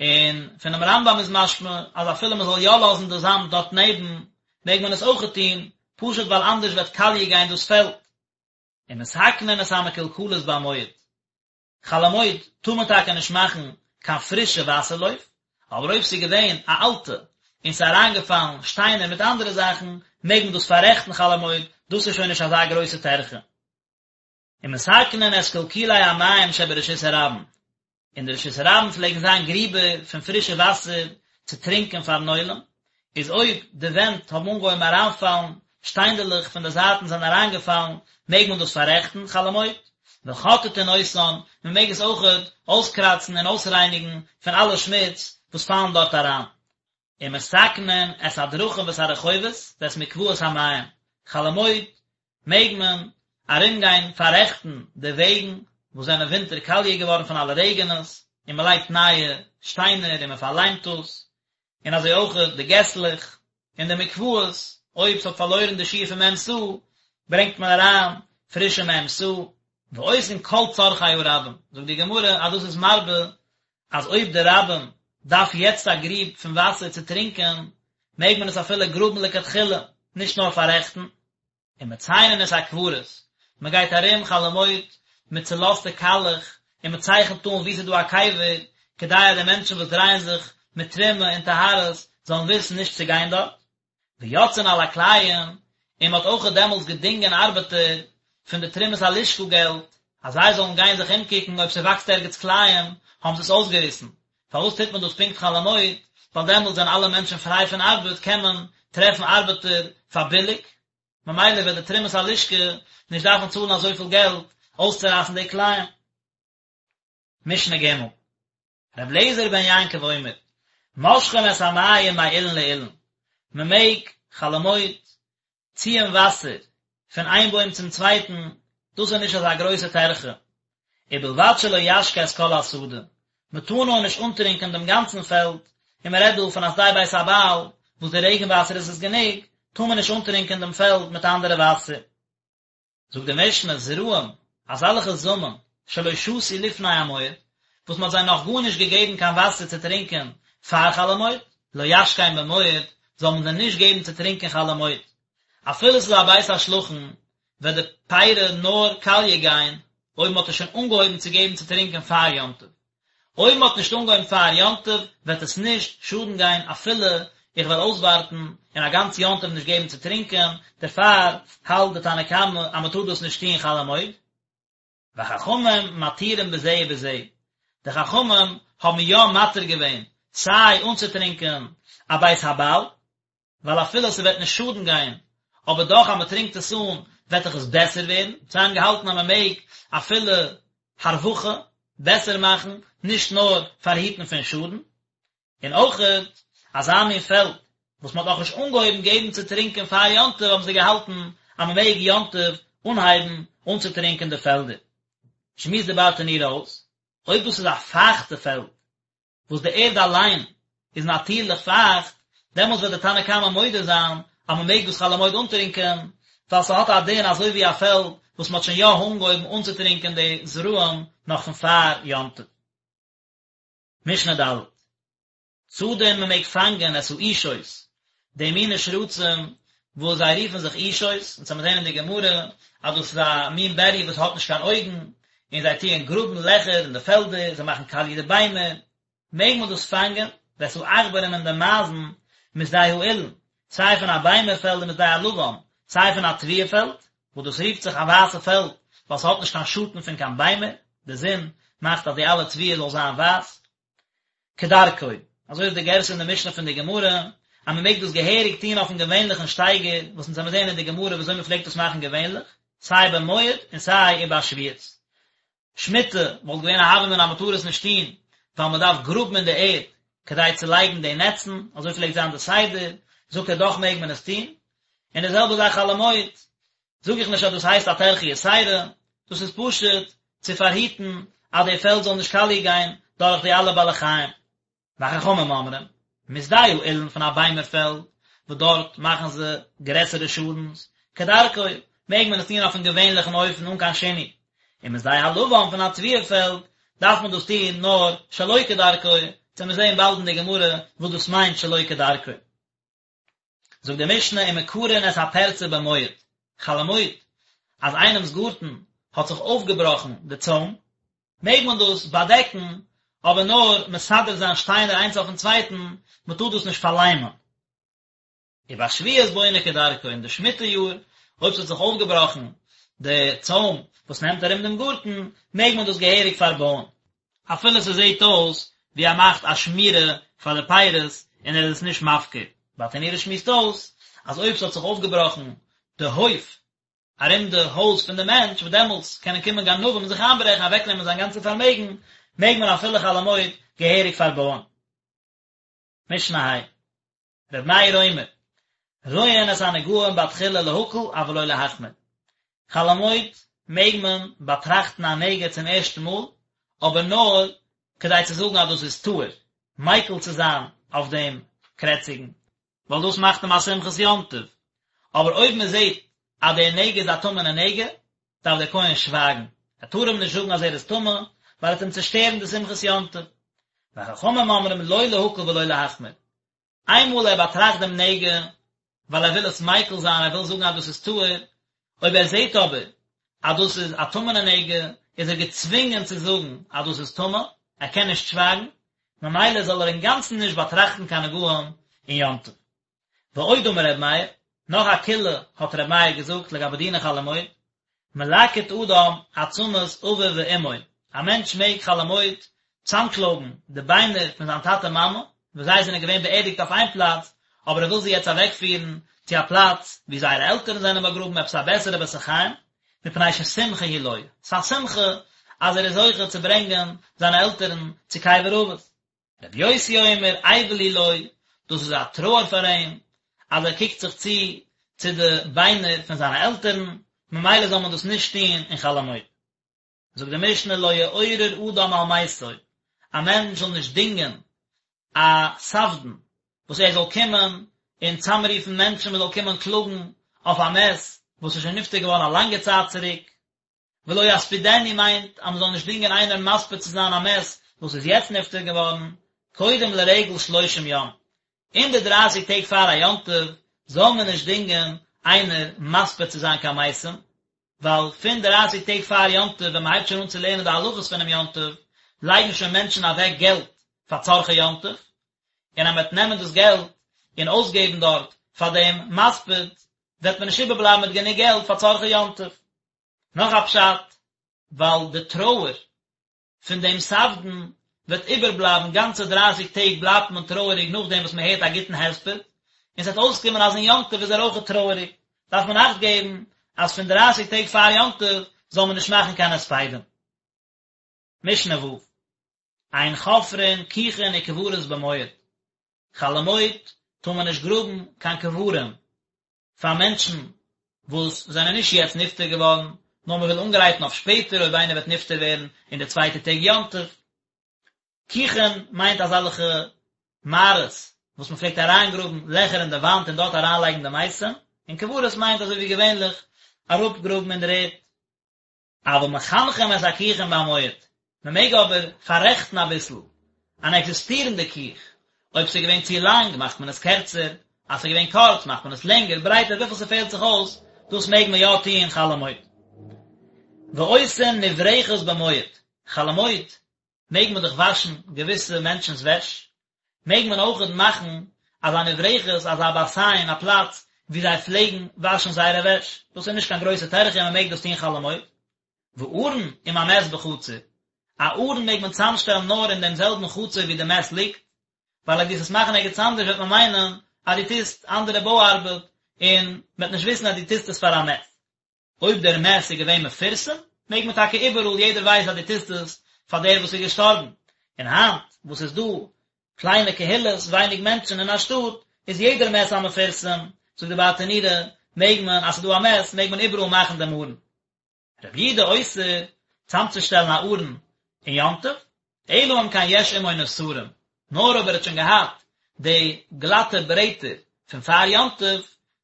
און פונעם רמב"ם איז משמע אז אפילו מען זאל יא לאזן די זאמד דארט נעבן, מעג מען עס אויכעט טון, פשוט ווייל אנדערש וועט קאליע גיין דאס פעלד. ומתקנין את המקולקלות במועד. חול המועד טאר מען טאקע נישט מאכן קיין פרישע וואסער לויף, אבער אויב ס'איז געווען א אלטע און ס'איז אריינגעפאלן שטיינער מיט אנדערע זאכן, מעג מען דאס פאררעכטן חול המועד, דאס איז שוין נישט אזא גרויסע טרחה. ומתקנין את קלקולי המים שברשות הרבים, אין די רשות הרבים פלעגן זיין גריבער פון פרישע וואסער צו טרינקען פארן עולם, איז אויב די ווענט האבן אנגעהויבן אריינפאלן, שטיינדעלעך פון די זייטן זענען אריינגעפאלן, מעג מען דאס פאררעכטן חול המועד, וחוטטין אותן, מען מעג עס אויכעט אויסקראצן און אויסרייניגן פון אלע שמוץ וואס פאלן דארט אריין. ומתקנין את הדרכים ואת הרחובות ואת מקוואות המים, חול המועד מעג מען ארומגיין פאררעכטן די וועגן וואס זענען ווינטער קאליע געווארן פון אלע רעגענעס, און מען לייגט נייע שטיינער און מען פארליימט דאס, און אזוי אויך די געסלעך און די מקוואות, אויב ס'האט פארלוירן די שיעור פון מ' סאה, ברענגט מען אריין פרישע מ' סאה. ועושין כל צרכי הרבים, זאגט די גמרא אז דאס איז מרבה אז אויב די רבים דארף יעצט א גריב פון וואסער צו טרינקען, מעג מען עס אפילו גראבן לכתחילה, נישט נאר פאררעכטן. ומציינין את הקברות, מען גייט ארום חול המועד מיט צולאזטע קאלעך און מען צייכנט אן וואו ס'איז דא א קבר, כדי אז די מענטשן וואס דרייען זיך מיט תרומה און טהרות זאלן וויסן נישט צו גיין דארט. ויוצאין על הכלאים, און מען האט אויכעט דעמאלטס געדינגען ארבעטער פון די תרומת הלשכה געלט, אז זיי זאלן גיין זיך אומקוקן אויב ס'וואקסט ערגעץ כלאים, האבן זיי עס אויסגעריסן. פארוואס טוט מען דאס פונקט חול המועד? ווייל דעמאלטס זענען אלע מענטשן פריי פון ארבעט, קען מען טרעפן ארבעטער פאר ביליג, ממילא וועט די תרומת הלשכה נישט דארפן צאלן אזויפיל געלט אויסצורייסן די כלאים. משנה ג', ר' אליעזר בן יעקב אומר, מושכין את המים מאילן לאילן, מען מעג חול המועד ציען וואסער פון איין בוים צום צווייטן, דאס איז נישט אזא גרויסע טרחה, ובלבד שלא ישקה את כל השדה, מען טאר נאר נישט אנטרינקען דעם גאנצן פעלד, און מען רעדט דא פון א שדה בית הבעל, וואס די רעגן וואסער איז עס גענוג, טאר מען נישט אנטרינקען דעם פעלד מיט אנדערע וואסער. זאגט די משנה, זרעים, אזעלכע זאמען, שלא שתו לפני המועד, וואס מען האט זיי נאך גארנישט געגעבן קיין וואסער צו טרינקען פאר חול המועד, לא ישקם במועד, זאל מען זיי נישט געבן צו טרינקען חול המועד. אפילו ס'איז א בית השלחין, וועט די פירי נאר קאליע גיין אויב מען האט עס שוין אנגעהויבן צו געבן צו טרינקען פאר יום טוב. אויב מען האט נישט אנגעהויבן פאר יום טוב וועט עס נישט שאדן גיין אפילו איך וועל אויסווארטן און א גאנץ יום טוב נישט געבן צו טרינקען, דערפאר האלט די תנא קמא אז מען טאר דאס נישט טון חול המועד. וחכמים מתירים בזה ובזה, די חכמים האבן יא מתיר געווען סיי אנצוטרינקען א בית הבעל, ווייל אפילו ס'וועט נישט שאדן גיין, אבער דאך אז מ'טרינקט עס אן וועט דאך עס בעסער ווערן, זיי האבן געהאלטן אז מ'מעג אפילו הרווחה, בעסער מאכן, נישט נאר פארהיטן פון שאדן, און אויכעט אזא מין פעלד וואס מ'האט נאכנישט אנגעהויבן געבן צו טרינקען פאר יום טוב האבן זיי געהאלטן אז מ'מעג יום טוב אנהייבן אנצוטרינקען די פעלדער. שמועסט די ברטנורא אויס, אויב דאס איז א פייכטע פעלד וואס די ערד אליין איז נאטירליך פייכט, דעמאלטס וועט די תנא קמא מודה זיין אז מען מעג דאס חול המועד אנטרינקען, ווייל ס'האט א דין אזוי ווי א פעלד וואס מען האט שוין יא אנגעהויבן אנצוטרינקען די זרעים נאך פון פאר יום טוב. משנה ד'. צדין מען מעג פאנגען את האישות, די מיני שרצים וואס זיי רופן זיך אישות, אונז וועלן זעהן אין די גמרא אז דאס איז א מין בריה וואס האט נישט קיין אויגן, און זיי טוען גראבן לעכער אין די פעלדער, זיי מאכן קאליע די ביימער, מעג מען דאס פאנגען, ואת העכברים און די מייזן משדה האילן, סיי פון א ביימער פעלד ומשדה הלבן, סיי פון א תבואה פעלד, וואס דאס רופט זיך א ווייסע פעלד, ווייל ס'האט נישט קיין שאטן פון קיין ביימער, די זון מאכט אז די אלע תבואה זאל זיין ווייס. כדרכו, אזוי איז די גירסא אין די משנה פון די גמרא, אז מען מעג דאס געהעריג טון אויפן געווענליכן שטייגער, וואס אונז וועלן זעהן אין די גמרא ווי אזוי מען פלעגט דאס מאכן געווענליך, סיי במועד און סיי ובשביעית. שמיטה וואלט געווען א הוה אמינא אז מען טאר עס נישט טון, ווייל מען דארף גראבן אין די ערד כדי צו לייגן די נעצן, אזוי פלעגט זיין די סדר, זאגט ער דאך מעג מען עס טון. און די זעלבע זאך חול המועד, זאג איך נישט אז דאס הייסט א טרחה יתירה, דאס איז פשוט צו פארהיטן אז די פעלד זאל נישט קאליע גיין דורך די אלע בעלי חיים. וחכמים אומרים, משדה האילן פון א ביימער פעלד, וואס דארט מאכן זיי גרעסערע שאדנס, כדרכו, מעג מען עס טון אויפן געווענליכן אופן אן קיין שינוי, און משדה הלבן פון א תבואה פעלד דארף מען דאס טון נאר שלא כדרכו, וועט מען זען באלד אין די גמרא וואס דאס מיינט שלא כדרכו. זאגט די משנה ומקרין את הפרצה במועד, חול המועד, אז איינעמס גארטן האט זיך אויפגעבראכן די צוים, מעג מען דאס באדעקן, אבער נאר מסדר זיין שטיינער איינס אויפן צווייטן, מען טאר דאס נישט פארליימען. ובשביעית בונה כדרכו, אין די שמיטה יאר, אויב ס'האט זיך אויפגעבראכן די צוים וואס נעמט ארום דעם גארטן, מעג מען דאס געהעריג פארבויען. אפילו ס'זעט אויס ווי ער מאכט א שמירה פאר די פירות און ער איז עס נישט מפקיר. ברטנורא שמועסט אויס אז אויב ס'האט זיך אויפגעבראכן די הויף ארום די הויז פון די מענטש וואס דעמאלטס קענען קומען גנבים און זיך איינברעכן אוועקנעמען זיין גאנצע פארמעגן, מעג מען אפילו חול המועד געהעריג פארבויען. משנה ה'. ר' מאיר אומר, רואין את הנגעים בתחילה להקל אבל לא להחמיר. חול המועד מעג מען באטראכטן א נגע צום ערשטן מאל, אבער נאר כדי צו זאגן אז דאס איז טהור, מיקל צו זיין אויף דעם קרעציגן, ווייל דאס מאכט אים א שמחת יום טוב, אבער אויב מען זעט אז דער נגע איז א טמא'נע נגע, דארף דער כהן שווייגן, ער טאר אים נישט זאגן אז ער איזטמא, ווייל ער וועט אים צושטערן די שמחת יום טוב. וחכמים אומרים לא להקל ולא להחמיר, איינמאל ער באטראכט דעם נגע, ווייל ער וויל עס מיקל זיין, ער וויל זאגן אז דאס איז טהור, אויב ער זעט אבער אז דאס איז א טמא'נע נגע, איז ער געצווינגען צו זאגן אז דאס איז טמא, ער קען נישט שווייגן, ממילא זאל ער אינגאנצן נישט באטראכטן קיין נגעים אין יום טוב. ועוד אמר ר' מאיר, נאך א קולא האט ר' מאיר געזאגט לגבי דיני חול המועד, מלקט אדם עצמות אביו ואמו, א מענטש מעג חול המועד צאמקלויבן די ביינער פון זיין טאטע מאמע, וואס זיי זענען געווען באערדיגט אויף איין פלאץ, אבער ער וויל זיי יעצט אוועקפירן צו א פלאץ וואו זייערע עלטערן זענען באגראבן, עפעס א בעסערע בית החיים, מפני ששמחה היא לו, ס'איז א שמחה אז ער איז זוכה צו ברענגען זיינע עלטערן צו קבר אבות. רבי יוסי אומר אבל הוא לו, דאס איז א טרויער פאר אים, אז ער קוקט זיך צו צו די ביינער פון זיינע עלטערן, ממילא זאל מען דאס נישט טון אין חול המועד. זאגט די משנה לא יעורר אדם על מתו, א מענטש זאל נישט דינגען א ספדן וואס ער זאל קומען און צאמרופן מענטשן מען זאל קומען קלאגן אויף א מת וואס איז שוין נפטר געווארן א לאנגע צייט צוריק, ולא יספידנו מיינט אז מען זאל נישט דינגען איינער מספיד צו זיין א מת וואס איז יעצט נפטר געווארן, קודם לרגל שלושים יום, אין די דרייסיג טעג פאר א יום טוב זאל מען נישט דינגען איינער מספיד צו זיין קיין מתים, ווייל פון דרייסיג טעג פאר יום טוב ווען מען הייבט שוין אן צו לערנען די הלכות פונעם יום טוב, לייגן שוין מענטשן אוועק געלט פאר צרכי יום טוב, און אז מען וועט נעמען דאס געלט און אויסגעבן דארט פאר דעם מספיד, וועט מען נישט איבערבלייבן מיט גענוג געלט פאר צרכי יום טוב. נאך א פשט, ווייל די טרויער פון דעם ספדן וועט איבערבלייבן גאנצע דרייסיג טעג בלייבט מען טרויעריג נאכדעם וואס מען הערט א גוטן הספד, און ס'וועט אויסקומען אז אין יום טוב איז ער אויכעט טרויעריג, דארף מען אכט געבן אז פון דרייסיג טעג פאר יום טוב זאל מען נישט מאכן קיין הספדים. משנה ו', אין חופרין כוכין וקברות במועד, חול המועד טאר מען נישט גראבן קיין קברים, פאר מענטשן וואס זענען נישט יעצט נפטר געווארן, נאר מען וויל אנגרייטן אויף שפעטער אויב איינער וועט נפטר ווערן אין די צווייטע טעג יום טוב. כוכין מיינט אזעלכע מערות וואס מען פלעגט אריינגראבן לעכער אין די וואנט און דארט אריינלייגן די מתים, און קברות מיינט אזוי ווי געווענליך אראפגראבן אין דער ערד. אבל מחנכים את הכוכין במועד, מען מעג אבער פאררעכטן אביסל אן עקזיסטירנדע כוך, אויב ס'איז געווען צו לאנג מאכט מען עס קערצער, אז ס'איז געווען קורץ מאכט מען עס לענגער, ברייטער, וויפיל ס'פעלט זיך אויס, דאס מעג מען יא טוען חול המועד. ועושין נברכת במועד, חול המועד מעג מען דאך וואשן געוויסע מענטשנ'ס וועש, מעג מען אויכעט מאכן אזא נברכת, אזא באסיין, א פלאץ וואו זיי פלעגן וואשן זייערע וועש, דאס איז נישט קיין גרויסע טרחה און מען מעג דאס טון חול המועד. וארון עם המת בחצר, א ארון מעג מען צאמשטעלן נאר אין דעם זעלבן חצר וואו די מת ליגט, ווייל אויב דו וועסט עס מאכן ערגעץ אנדערש וועט מען מיינען אז דו טוסט אנדערע בוי ארבעט און מען וועט נישט וויסן אז דו טוסט עס פאר א מת. אויב דער מת איז געווען מפורסם, מעג מען טאקע איבעראל, יעדער ווייסט אז דו טוסט עס פאר דער וואס איז געשטארבן. און היינט וואס איז דא קליינע קהילות, ווייניג מענטשן אין א שטאט, איז יעדער מת א מפורסם, זאגט די ברטנורא, מעג מען, אז ס'איז דא א מת, מעג מען איבעראל מאכן דעם ארון. רבי יהודה אוסר צאמצושטעלן א ארון אין יום טוב, אלא אם כן יש עמו נסרים, נאר אויב ער האט שוין געהאט די גלאטע ברעטער פון פאר יום טוב,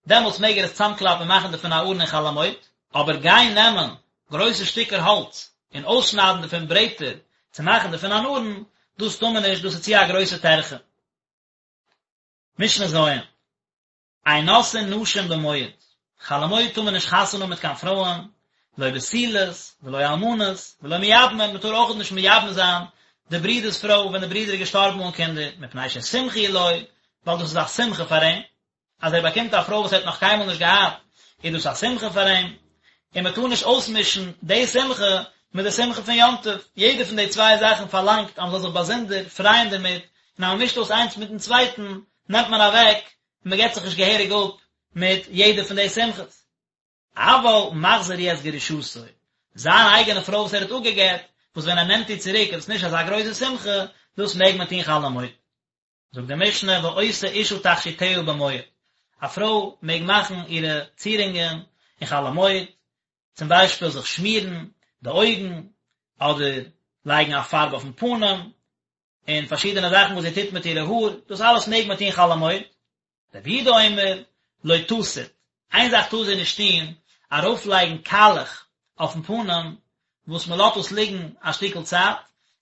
דעמאלטס מעג ער עס צאמקלאפן און מאכן דערפון א ארון אין חול המועד, אבער גיין נעמען גרויסע שטיקער האלץ און אויסשניידן דערפון ברעטער צו מאכן דערפון אן ארון, דאס טאר מען נישט, דאס איז צו א גרויסע טרחה. משנה ז'. אין נושאין נשים במועד, חול המועד טאר מען נישט חתונה האבן מיט קיין פרויען, לא בתולות, ולא אלמנות, ולא מייבמין, מען טאר אויך נישט מייבם זיין די ברודער'ס פרוי ווען די ברודער איז געשטארבן אן קינדער, מפני ששמחה היא לו, ווייל דאס איז א שמחה פאר אים, אז ער באקומט א פרוי וואס ער האט נאך קיינמאל נישט געהאט, איז דאס א שמחה פאר אים, און מען טאר נישט אויסמישן די שמחה מיט די שמחה פון יום טוב, יעדע פון די צוויי זאכן פארלאנגט אז מען זאל זיך באזונדער פרייען דערמיט, און אז מען מישט אויס איינס מיטן צווייטן, נעמט מען אוועק און מען געבט זיך נישט געהעריג אפ מיט יעדע פון די שמחות. אבל מחזיר הוא את גרושתו, זיין אייגענע פרוי וואס ער האט אפגעגט, וואס ווען ער נעמט איר צוריק איז עס נישט אזא גרויסע שמחה, דאס מעג מען טון חול המועד. זאגט די משנה ועושה אשה תכשיטיה במועד, א פרוי מעג מאכן אירע צירונגען אין חול המועד, צום ביישפיל זיך שמירן די אויגן, אדער לייגן א פארב אויפן פנים, און פארשידענע זאכן וואס זי טוט מיט אירע האר, דאס אלעס מעג מען טון חול המועד. רבי יהודה אומר, לא תסיט, איין זאך טאר זי נישט טון, ארויפלייגן קאלעך אויפן פנים, וואס מען לאזט עס ליגן א שטיקל צייט,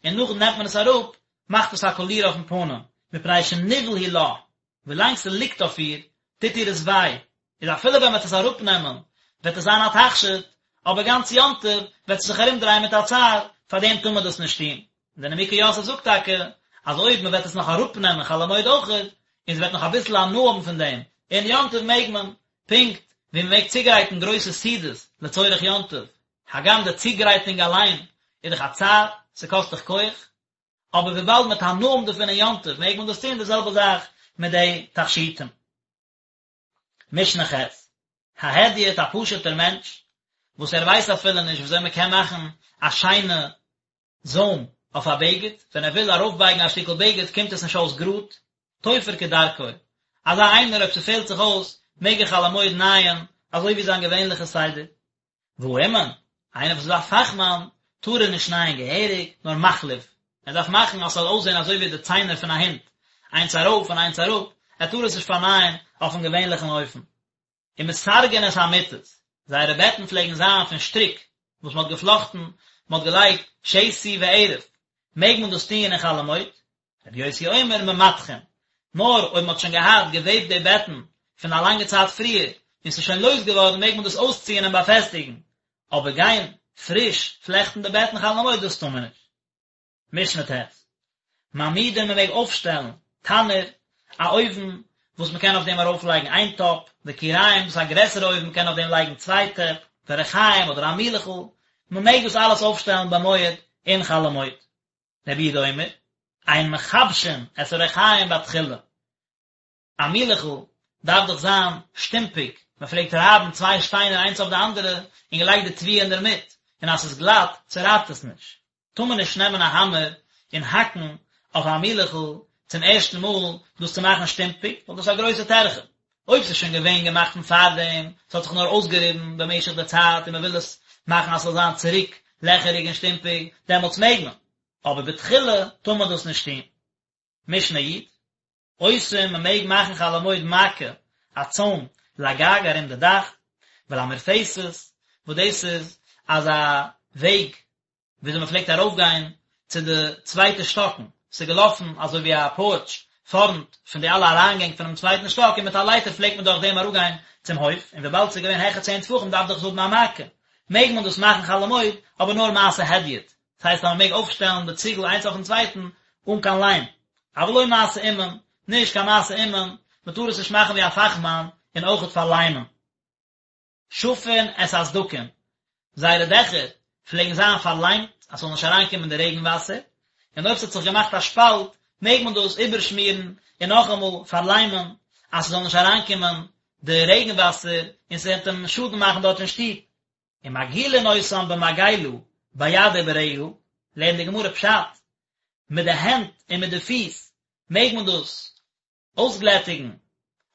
און נאכדעם נעמט מען עס אראפ, מאכט עס א קאליר אויפן פנים, מפני שניוול הוא לה, ווילאנג ס'ליגט אויף איר, טוט איר עס וויי, איז אפילו ווען מ'וועט עס אראפנעמען, וועט עס זיין א תכשיט, אבער גאנץ יום טוב וועט זי זיך ארומדרייען מיט א צער, פארדעם טאר מען דאס נישט טון. און דער נימוקי יוסף זאגט טאקע, אז אויב מ'וועט עס נאך אראפנעמען חול המועד אויכעט, און זי וועט נאך אביסל הנאה האבן פון דעם, אין יום טוב מעג מען, פונקט ווי מ'מעג צוגרייטן גרויסע סעודות לצורך יום טוב, הגם די צוגרייטונג אליין איז דאך א צער, ס'קאסט דאך כח, אבער וויבאלד מ'וועט הנאה האבן דערפון אין יום טוב מעג מען דאס טון, די זעלבע זאך מיט די תכשיטים. משנה ח', ההדיוט א פשוט'ער מענטש, וואס ער ווייסט אפילו נישט וויאזוי מען קען מאכן א שיינע זוים אויף א בגד, ווען ער וויל ארויפבייגן א שטיקל בגד קומט עס נישט אויס גראד, תופר כדרכו, אזא איינער אויב ס'פעלט זיך אויס מעג ער חול המועד נייען אזוי ווי זיין געווענליכע סדר. והאומן, איינער וואס איז א פאכמאן, טאר ער נישט נייען געהעריג, נאר מחליף, ער דארף מאכן אז ס'זאל אויסזען אזוי ווי די ציינער פון א הונט, איינס ארויף און איינס אראפ, ער טאר עס נישט פארנייען אויפן געווענליכן אופן. ומסרגין את המיטות, זייערע בעטן פלעגן זיין פון שטריק וואס מ'האט געפלאכטן, מ'האט געלייגט שתי וערב, מעג מען דאס טוען אין חול המועד? רבי יוסי אומר ממתחין, נאר אויב מ'האט שוין געהאט געוועבט די בעטן פון א לאנגע צייט פריער, און ס'איז שוין לויז געווארן מעג מען דאס אויסציען און באפעסטיגן, אבער גיין פריש פלעכטן די בעטן חול המועד דאס טאר מען נישט. משנה ט', מעמידין מען מעג אויפשטעלן, תנור, א אויוון וואס מען קען אויף דעם ארויף לייגן איין טאפ, וכירים דאס איז א גרעסערע אויוון מען קען אויף דעם לייגן צוויי טעפ, ורחיים אדער א מילעכל, מען מעג דאס אלעס אויפשטעלן במועד אין חול המועד. רבי יהודה אומר, אין מכבשין את הריחיים בתחילה. א מילעכל דארף דאך זיין שטומפיג, מען פלעגט רייבן צוויי שטיינער איינס אויף די אנדערע און געלייגט די תבואה אינדערמיט, און אז ס'איז גלאט צורייבט עס נישט. טאר מען נישט נעמען א האמער און האקן אויף א מילעכל צום ערשטן מאל דאס צו מאכן שטומפיג, ווייל דאס איז א גרויסע טרחה. אויב ס'איז שוין געווען געמאכט פון פארדעם, ס'האט זיך נאר אויסגעריבן במשך די צייט און מ'וויל עס מאכן אז ס'זאל זיין צוריק לעכעריג און שטומפיג, דעמאלטס מעג מען, אבער בתחילה טאר מען דאס נישט טון. משנה י', עושים מ'מעג מאכן חול המועד מעקה, א צוים, לגג ארום די דאך, ולמרפסת, וואס דאס איז אזא וועג וויאזוי מען פלעגט ארויפגיין צו די צווייטע שטאקן, ס'איז געלאפן אזוי ווי א פארטש פארנט פון די אלע אריינגענג פונעם צווייטן שטאק און מיט א לייטער פלעגט מען דורך דעם אראפגיין צום הויף, און וויבאלד ס'איז געווען העכער צען טפחים דארף דאך עס האבן א מעקה, מעג מען דאס מאכן חול המועד, אבער נאר מעשה הדיוט, דאס הייסט אז מען מעג אויפשטעלן די ציגל איינס אויפן צווייטן אן קיין ליים, אבל לא מעשה אומן, נישט קיין מעשה אומן, מען טאר עס נישט מאכן ווי א פאכמאן און אויכעט פארליימען. שפין את הסדקין, זייערע דעכער פלעגן זיין פארליימט אז ס'זאל נישט אריינקומען די רעגן וואסער, און אויב ס'האט זיך געמאכט א שפאלט מעג מען דאס איבערשמירן און נאכאמאל פארליימען אז ס'זאל נישט אריינקומען די רעגן וואסער און ס'וועט אים שאדן מאכן דארט אין שטוב. ומגעילין אותן במגילה ביד וברגל, לערנט די גמרא פשט, מיט די הענט און מיט די פיס מעג מען דאס אויסגלעטיגן,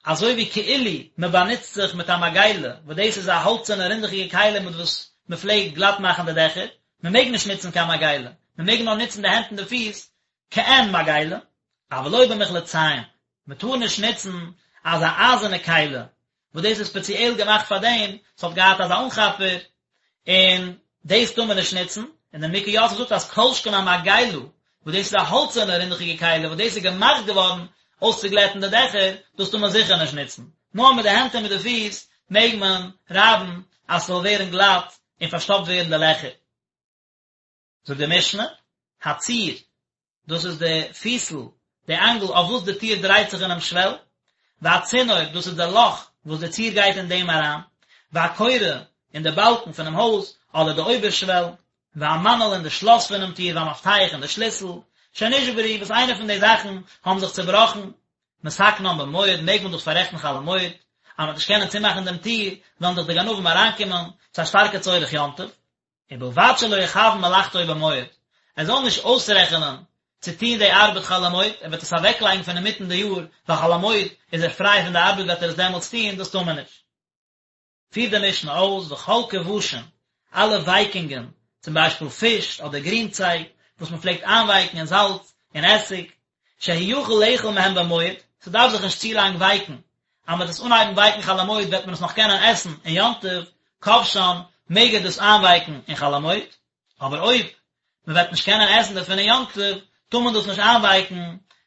אזוי ווי כאילו מען באנוצט זיך מיט א מגילה, וואס דאס איז א האלצערנע רינדעכיגע כלי מיט וואס מען פלעגט גלאט מאכן די דעכער, מען מעג נישט נוצן קיין מגילה, מען מעג נאר נוצן די הענט און די פיס כעין מגילה, אבל לא במחלצים, מען טאר נישט נוצן אזא אייזערנע כלי. וואס דאס איז ספעציעל געמאכט פאר דעם, ס'האט געהאט אזא אנכאפער, און דאס טאר מען נישט נוצן, און דער נימוקי יוסף זאגט אז כל שכן א מגילה, וואס דאס איז א האלצערנע רינדעכיגע כלי וואס דאס איז געמאכט געווארן אויסצוגלעטן די דעכער, דאס טאר מען זיכער נישט נוצן, נאר מיט די הענט און מיט די פיס מעג מען רייבן אז ס'זאל ווערן גלאט און פארשטאפט ווערן די לעכער. זאגט די משנה, הציר, דאס איז די פיסל, די אנגל אויף וואס די טיר דרייט זיך אינעם שוועל, והצינור, דאס איז די לאך וואס די ציר גייט אין דעם אריין, והקורה, און די באלקן פונעם הויז, אדער די אויבערשוועל, והמנעול און די שלאס פונעם טיר, והמפתח און די שליסל, שנשברו, וואס איינע פון די זאכן האבן זיך צעבראכן, מתקנן במועד, מעג מען דאס פאררעכטן חול המועד, אז מען וועט נישט קענען צומאכן דעם טיר, וועלן דאך די גנבים אריינקומען, ס'איז א שטארקע צורך יום טוב. ובלבד שלא יכוון מלאכתו במועד, ער זאל נישט אויסרעכענען צו טון די ארבעט חול המועד, ער וועט עס אוועקלייגן פון אינמיטן די יאר, ווייל חול המועד איז ער פריי פון די ארבעט וועט ער עס דעמאלטס טון, דאס טאר מען נישט. פירט די משנה אויס, וכל כבשין, אלע ווייקונגען, צום ביישפיל פיש אדער גרינצייג, וואס מען פלעגט איינווייקן אין זאלץ און עסיג, שהוא יכול לאכול מהם במועד, ס'דארף זיך נישט צו לאנג ווייקן, אז מ'וועט עס אנהייבן ווייקן חול המועד וועט מען עס נאך קענען עסן אין יום טוב, כובשן, מעג ער דאס איינווייקן אין חול המועד, אבער אויב מ'וועט נישט קענען עסן דערפון אין יום טוב, טאר מען דאס נישט איינווייקן,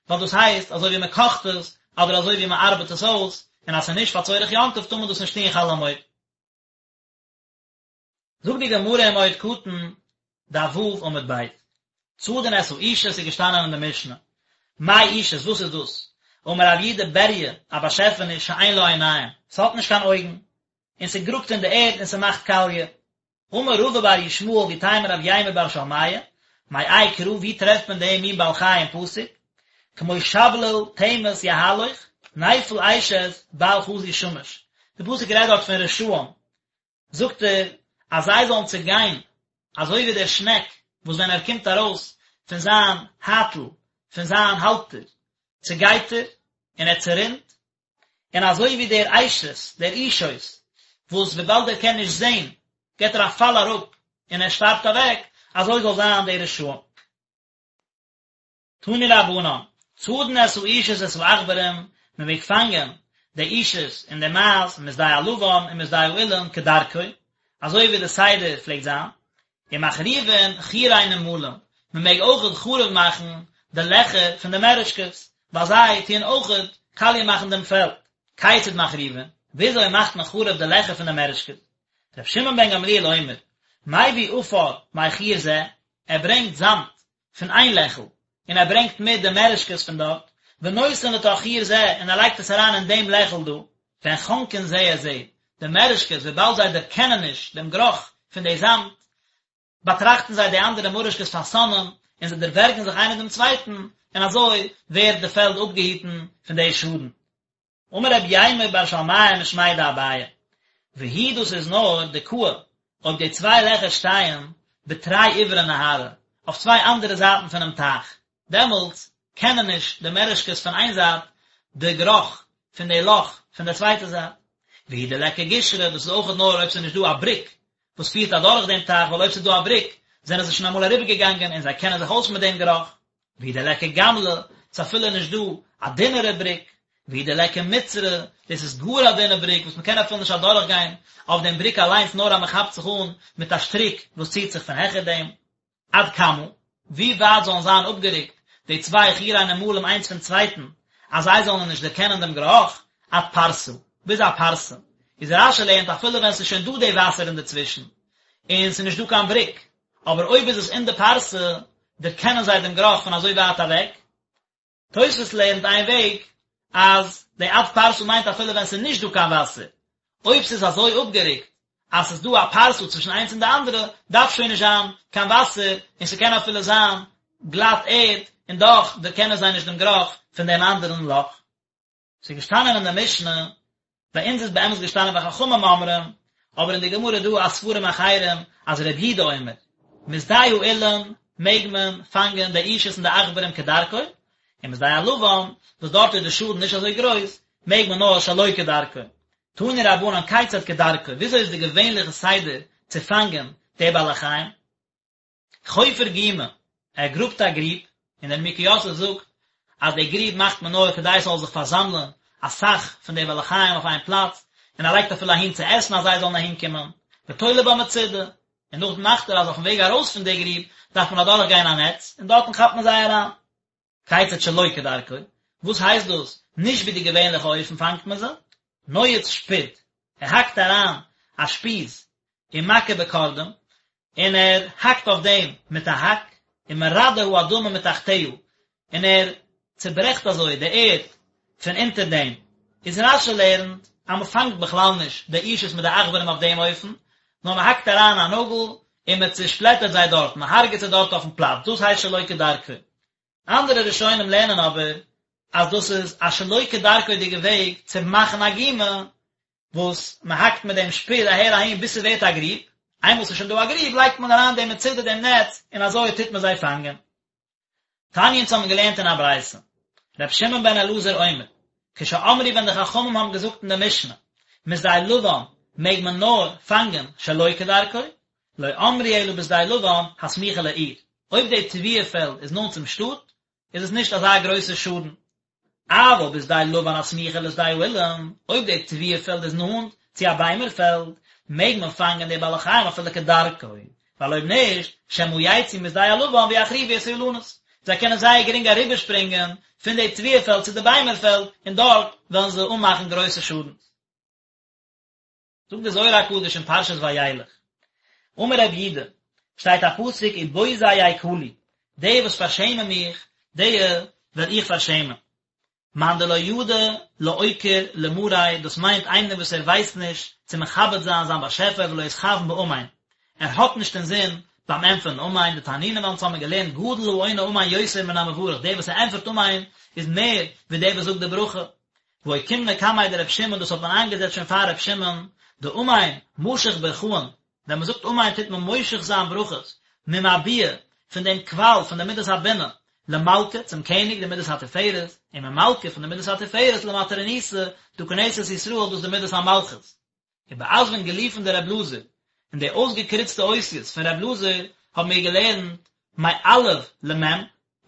ווייל דאס הייסט אזוי ווי מ'קאכט עס, אדער אזוי ווי מ'ארבעט עס אויס, און אז ס'איז נישט פאר צורך יום טוב טאר מען דאס נישט טון חול המועד. זאגט די גמרא אין מועד קטן, דף ו' עמוד ב', צדין את האישות איז געשטאנען אין די משנה, מאי אישות וואס איז דאס? אמר רב יהודה בריה, א באשעפעניש שאין לה עיניים, ס'האט נישט קיין אויגן, און ס'גראבט אין די ערד און ס'מאכט קאליע. אמר רבא בר ישמעאל ואיתימא רב יימר בר שלמיא, מאי קרא ווי טרעפט מען דעם מין בעל חי אין פסוק? כמו שבליל תמס יהלוך, נפל אשת בל חזו שמש. די פסוק רעדט דארט פון רשעים, זאגט ער אז זיי זאלן צעגיין אזוי ווי דער שנעק וואס ווען ער קומט ארויס פון זיין הייטל, פון זיין האלטער, צעגייט ער און ער צערינט, און אזוי ווי דער אשת, דער אישות, וואס וויבאלד ער קען נישט זען, געט ער א פאל אראפ און ער שטארבט אוועק, אזוי זאל זיין די רשעים. תנו רבנן, צדין את האישות ואת העכברים, מען מעג פאנגען די אישות און די מייז משדה הלבן און משדה האילן כדרכו, אזוי ווי די סדר פלעגט זיין, ומחריבין חורי נמלים, מען מעג אויכעט חרוב מאכן די לעכער פון די מערעשקעס, ווייל זיי טוען אויכעט קאליע מאכן דעם פעלד. כיצד מחריבין? וויאזוי מאכט מען חרוב די לעכער פון די מערעשקעס? ר' שמעון בן גמליאל אומר, מביא עפר מחור זה, ער ברענגט זאמד פון איין לעכל, און ער ברענגט מיט די מערעשקעס פון דארט, ונותן לתוך חור זה, און ער לייגט עס אריין אין דעם לעכל דא, והן חונקין זה את זה, די מערעשקעס, וויבאלד זיי דערקענען נישט דעם גערוך פון די זאמד, באטראכטן זיי די אנדערע מוראשקעס פאר שונאים, און זיי דערווערגן זיך איינער דעם צווייטן, און אזוי ווערט די פעלד אפגעהיטן פון די שאדן. אמר רב יימר בר שלמיא משמיה דאביי, והוא דאס איז נאר דקאי אויב די צוויי לעכער שטייען בתרי עברי נהרא, אויף צוויי אנדערע זייטן פונעם טייך, דעמאלטס קענען נישט די מערעשקעס פון איין זייט די גערוך פון די לאך פון די צווייטע זייט. והוא דליכא גישרא, דאס איז אויכעט נאר אויב ס'איז נישט דא א בריק וואס פירט אדורך דעם טייך, ווייל אויב ס'איז דא א בריק זענען זיי שוין אמאל אריבערגעגאנגען און זיי קענען זיך אויס מיט דעם גערוך. והוא דליכא גמלא, ס'איז אפילו נישט דא א דינערע בריק, והוא דליכא מצרא, דאס איז גאר א דינע בריק וואס מ'קען אפילו נישט אדורך גיין אויף דעם בריק אליינס נאר אז מ'כאפט זיך אן מיט א שטריק וואס ציט זיך פון העכער דעם. עד כמה, ווי ווייט זאלן זיין אפגערוקט די צוויי חורי נמלים איינס פון צווייטן אז זיי זאלן נישט דערקענען דעם גערוך, עד פרסה, ביז א פרסה, איז רש"י לערנט אפילו ווען ס'איז שוין דא די וואסער אינדערצווישן און ס'איז נישט דא קיין בריק, אבער אויב איז עס אין די פרסה, דערקענען זיי דעם גערוך פון אזוי ווייט אוועק. תוספות לערנט איין וועג, אז די עד פרסה מיינט אפילו ווען ס'איז נישט דא קיין וואסער, אויב ס'איז אזוי אפגערוקט אז ס'איז דא א פרסה צווישן איינס און די אנדערע, דארף שוין נישט זיין קיין וואסער, און ס'קען אפילו זיין גלאט ערד, און דאך דערקענען זיי נישט דעם גערוך פון דעם אנדערן לאך. ס'איז געשטאנען אין די משנה, ביי אונז איז באמת געשטאנען וחכמים אומרים, אבער אין די גמרא איז דא א ספרים אחרים אז רבי יהודה אומר, משדה האילן מעג מען פאנגען די אישות און די עכברים כדרכו, און משדה הלבן, וואס דארט איז די שאדן נישט אזוי גרויס, מעג מען נאר שלא כדרכו. תנו רבנן כיצד כדרכו, וויאזוי איז די געווענליכע סדר צו פאנגען די בעלי חיים? חופר גומא, ער גראבט א גריב, און דער נימוקי יוסף זאגט אז די גריב מאכט מען נאר כדי ס'זאל זיך פארזאמלען אסאך פון די בעלי חיים אויף איין פלאץ, און ער לייגט אפילו אהין צו עסן אז זיי זאלן אהין קומען, ותולה בה מצודה, און נאכדעם מאכט ער אז אויפן וועג ארויס פון די גריב דארף מען אדורך גיין א נעץ, און דארטן כאפט מען זיי אריין. כיצד שלא כדרכו, וואס הייסט דאס נישט ווי די געווענליכע אופן פאנגט מען זיי? נועץ שפוד, ער האקט אריין א שפיז ומכה בקרדום, און ער האקט אויף דעם מיט א האק, ומרדה האדמה מתחתיה, און ער צוברעכט אזוי די ערד פון אונטער דעם. איז רש"י לערנט אז מען פאנגט בכלל נישט די אישות מיט די עכברים אויף דעם אופן, נאר מען האקט אריין א נאגל און מען צושפלעטערט זיי דארט, מען הרג'עט זיי דארט אויפן פלאץ, דאס הייסט שלא כדרכו. אנדערע ראשונים לערנען אבער אז דאס איז א שלא כדרכו'דיגע וועג צו מאכן א גומא, וואס מען האקט מיט דעם שפיז אהער אהין ביז ס'ווערט א גריב, איינמאל ס'איז שוין דא א גריב לייגט מען אריין דעם מצודה דעם נעץ און אזוי טוט מען זיי פאנגען. תניא אונז האבן געלערנט אין א ברייתא, ר' שמעון בן אלעזר אומר, כשאמרו ווען די חכמים האבן געזאגט אין די משנה, משדה לבן מעג מען נאר פאנגען שלא כדרכו, לא אמרו אלא בשדה לבן הסמוכה לעיר, אויב די תבואה פעלד איז נאנט צום שטאט, איז עס נישט אזא גרויסע שאדן. אבל בשדה לבן הסמוכה לשדה האילן, אויב די תבואה פעלד איז נאנט צו א ביימער פעלד, מעג מען פאנגען די בעלי חיים אפילו כדרכו, ווייל אויב נישט, שמא יצאו משדה הלבן ויחריבו את האילנות, זיי קענען זייער גרינג אריבערשפרינגען פון די תבואה פעלד צו די ביימער פעלד, און דארט וועלן זיי אנמאכן גרויסע שאדנס. זאגט די זוהר הקדוש אין פרשת וילך, אמר רב יודא, שטייט א פסוק ובוזי יקלו, די וואס פארשעמען מיך, די וועל איך פארשעמען. מאן דלא ידע לאוקיר למאריה, דאס מיינט איינער וואס ער ווייסט נישט צו מכבד זיין זיין באשעפער ולא אתכוין באמן, ער האט נישט אינזין ביים ענטפערן אמן, דתנינן ווייל אונז האבן געלערנט גדול העונה אמן יותר מן המברך, דער וואס ער ענטפערט אמן איז מער ווי דער וואס זאגט די ברכה, ואוקימנא קמיה דרב שמעון דאס האט מען איינגעזעצט שוין פאר רב שמעון, דאמן משיך ברכאן, ווען מען זאגט אמן טוט מען מושך זיין ברכות, ממבועא, פון דעם קוואל פון די מידת הבינה, למלכא, צום קעניג, די מידת התפארת, און ממלכא, פון די מידת התפארת, למטרוניתא, דא כנסת ישראל, דאס איז די מידת המלכות. ובאתוון גליפין דר' אלעזר, אין די אויסגעקריצטע אותיות פון ר' אלעזר האבן מיר געלערנט מאלף למ',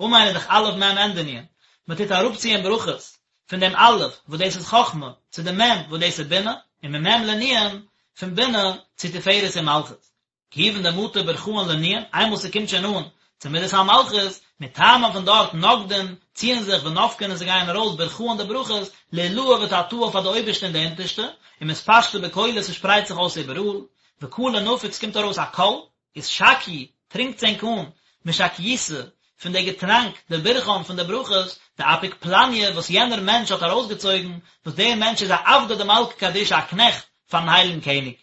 אמן איז דאך אלף מ' ענדע נון, מען טוט אראפציען ברכות פון דעם אלף וואס דאס איז חכמה צו דעם מ' וואס דאס איז בינה, און ממ' לנון, פון בינה צו תפארת און מלכות. כיוון דמטו ברכאן לנון, איינמאל ס'קומט שוין אן צו מידת המלכות, מתמן פון דארט נגדין, ציען זיך ונפקין און זיי גייען ארויס ברכאן די ברכות, לעילאה ותתאה פאר די אויבערשטע און די אונטערשטע, ומתפשטי בכלא ס'שפרייט זיך אויס איבעראל, וקלא נפיק ס'קומט ארויס א קול, אתשקיו, טרינקטס ענק אן, משקיותא, פון די געטראנק, דברכאן פון די ברכות, דאפיק פלניא וואס יענער מענטש האט ארויסגעצויגן, וואס דער מענטש איז א עבדא דמלכא קדישא א קנעכט פארן הייליגן קעניג.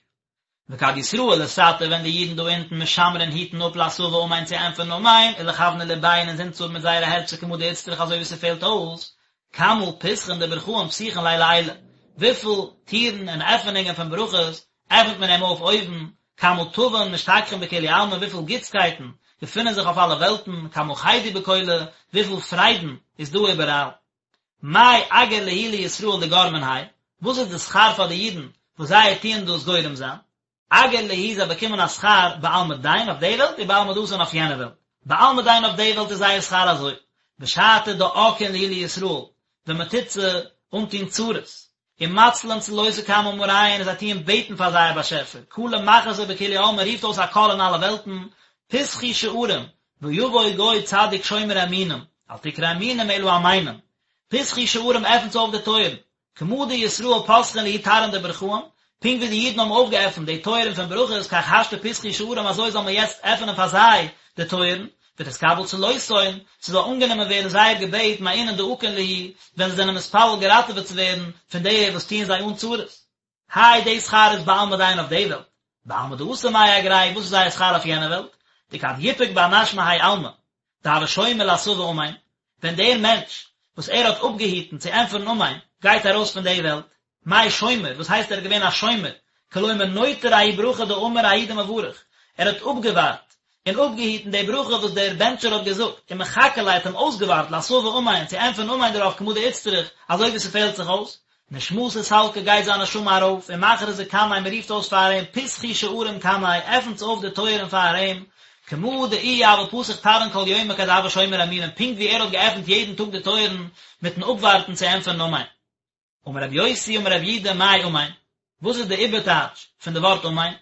וכד ישראל לתתא ווען די אידן דא אונטן משמרין היטן אפ לאתבא אמן צו ענטפערן אמן ולכוונא לבייהו און אינזין צו האבן מיט זייערע הערצער כמה דאיצטריך אזוי ווי ס'פעלט אויס, כמה פתחין דברכאן פתיחין ליה לעילא, וויפיל טירן און עפענונגען פון ברכות עפנט מען אים אויף אויבן, כמה טבין משתכחין בכולהו עלמין וויפיל גוטסקייטן געפינען זיך אויף אלע וועלטן, כמה חידו בכלא, וויפיל פריידן איז דא איבעראל. מאי אגר להו לישראל דגרמין האי, וואס איז די שכר פאר די אידן וואס זיי טוען דאס גורם זיין? אגר להו זיי באקומען א שכר בעלמא דין אויף די וועלט ובעלמא דאתי אויף יענע וועלט. בעלמא דין אויף די וועלט איז זייער שכר אזוי, בשעתא דעאקין להו לישראל, ווען מען טוט זיי אנטון צרות, ומצלין צלותא קמי מאריהון און זיי טוען בעטן פאר זייער באשעפער, קלא מכרזי בכולהו עלמין רופט אויס א קול אין אלע וועלטן, פתחו שערים, ויבוא גוי צדיק שומר אמונים, אל תקרי אמונים אלא אמנים, פתחו שערים עפנטס אויף די טויערן, כמה דישראל פתחין להו תרעין דברכאן, פונקט ווי די אידן האבן אויפגעעפנט די טויערן פון ברכות כך השתא פתחו שערים אזוי זאל מען יעצט עפענען פאר זיי די טויערן, ותתקבל צלותהון, ס'זאל אנגענומען ווערן זייער געבעט מאינון דעאקין להו, ווען זיי זענען מתפלל געראטעוועט צו ווערן פון די וואס טוען זיי אן צרות. האי די שכר איז בעלמא דין אויף די וועלט, בעלמא דאתי מאי אגרייהו וואס איז זייער שכר אויף יענע וועלט, דכד יפוק בר נש מהאי עלמא, דהוה שומר לאתבא אמן, ווען דער מענטש וואס ער האט אפגעהיטן צו ענטפערן אמן גייט ארויס פון די וועלט, מאי שומר, וואס הייסט ער איז געווען א שומר, כלומר נוטר ההיא ברכה דאמר ההוא דמברך, ער האט אפגעווארט און אפגעהיטן די ברכה וואס דער בענטשער האט געזאגט, ומחכה ליה האט אים אויסגעווארט לאתבא אמן צו ענטפערן אמן דערויף כמה דאיצטריך, אזוי ווי ס'פעלט זיך אויס, נשמתא סלקא גייט זיין נשמה ארויף, ומכרזי קמיה מ'רופט אויס פאר אים פתחו שערים קמיה, עפנטס אויף די טויערן פאר אים, כמה דאיהו הוה פתח תרעין כל יומא כד הוה שומר אמונים, פונקט ווי ער האט געעפנט יעדן טאג די טויערן מיטן אפווארטן צו ענטפערן אמן. אמר רבי יוסי אמר רבי יהודה מאי אמן? וואס איז די איבערטייטש פון די ווארט אמן?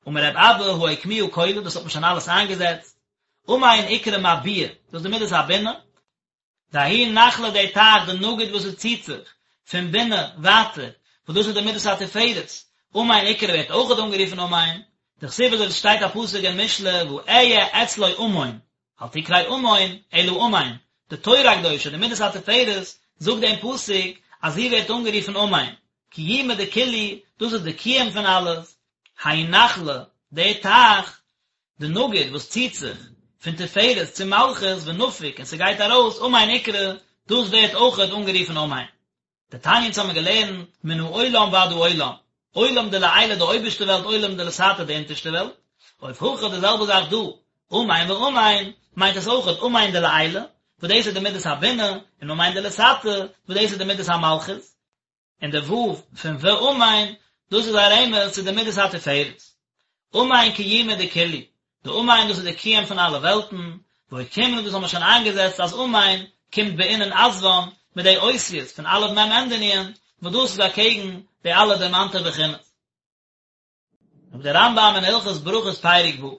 אמר רב אבא הא אוקמוה כולא, דאס האט מען שוין אלעס איינגעזעצט, אמן אקרי מביע, דאס איז די מידת הבינה, דההוא נחלא די טייך דנגיד וואס עס ציט זיך פון בינה ווייטער, וואס דאס איז די מידת התפארת, אמן אקרי ווערט אויכעט אנגערופן אמן, דכתיב אזוי ווי עס שטייט א פסוק אין משלי ואהיה אצלו אמון, אל תקרי אמון אלא אמן, די תורה הקדושה די מידת התפארת זאגט דעם פסוק אז זי ווערט אנגערופן אמן, קיומא דכולהו, דאס איז די קיום פון אלעס, ההוא נחלא, די טייך, דנגיד וואס ציט זיך פון תפארת צו מלכות ונפיק און ס'גייט ארויס אמן אקרי, דאס ווערט אויכעט אנגערופן אמן. דתניא אונז האבן געלערנט מן העולם ועד העולם, עולם דלעילא די אויבערשטע וועלט עולם דלתתא די אונטערשטע וועלט, אוף הכא די זעלבע זאך דא, אמן ואמן, מיינט עס אויכעט אמן דלעילא, וואס דאס איז די מידת הבינה, און אמן דלתתא, וואס דאס איז די מידת המלכות. און די ו' פון ואמן, דאס איז א רמז צו די מידת התפארת. אמן קיומא דכולהו, די אמן דאס איז די קיום פון אלע וועלטן, ואוקימנא דאס האבן מיר שוין איינגעזעצט אז אמן קומט באינון אתוון מיט די אותיות פון אלף מ' ענדע נון, וואס דאס איז אקעגן די אלע דערמאנטע בחינות. זאגט דער רמב"ם אין הלכות ברכות פרק ו',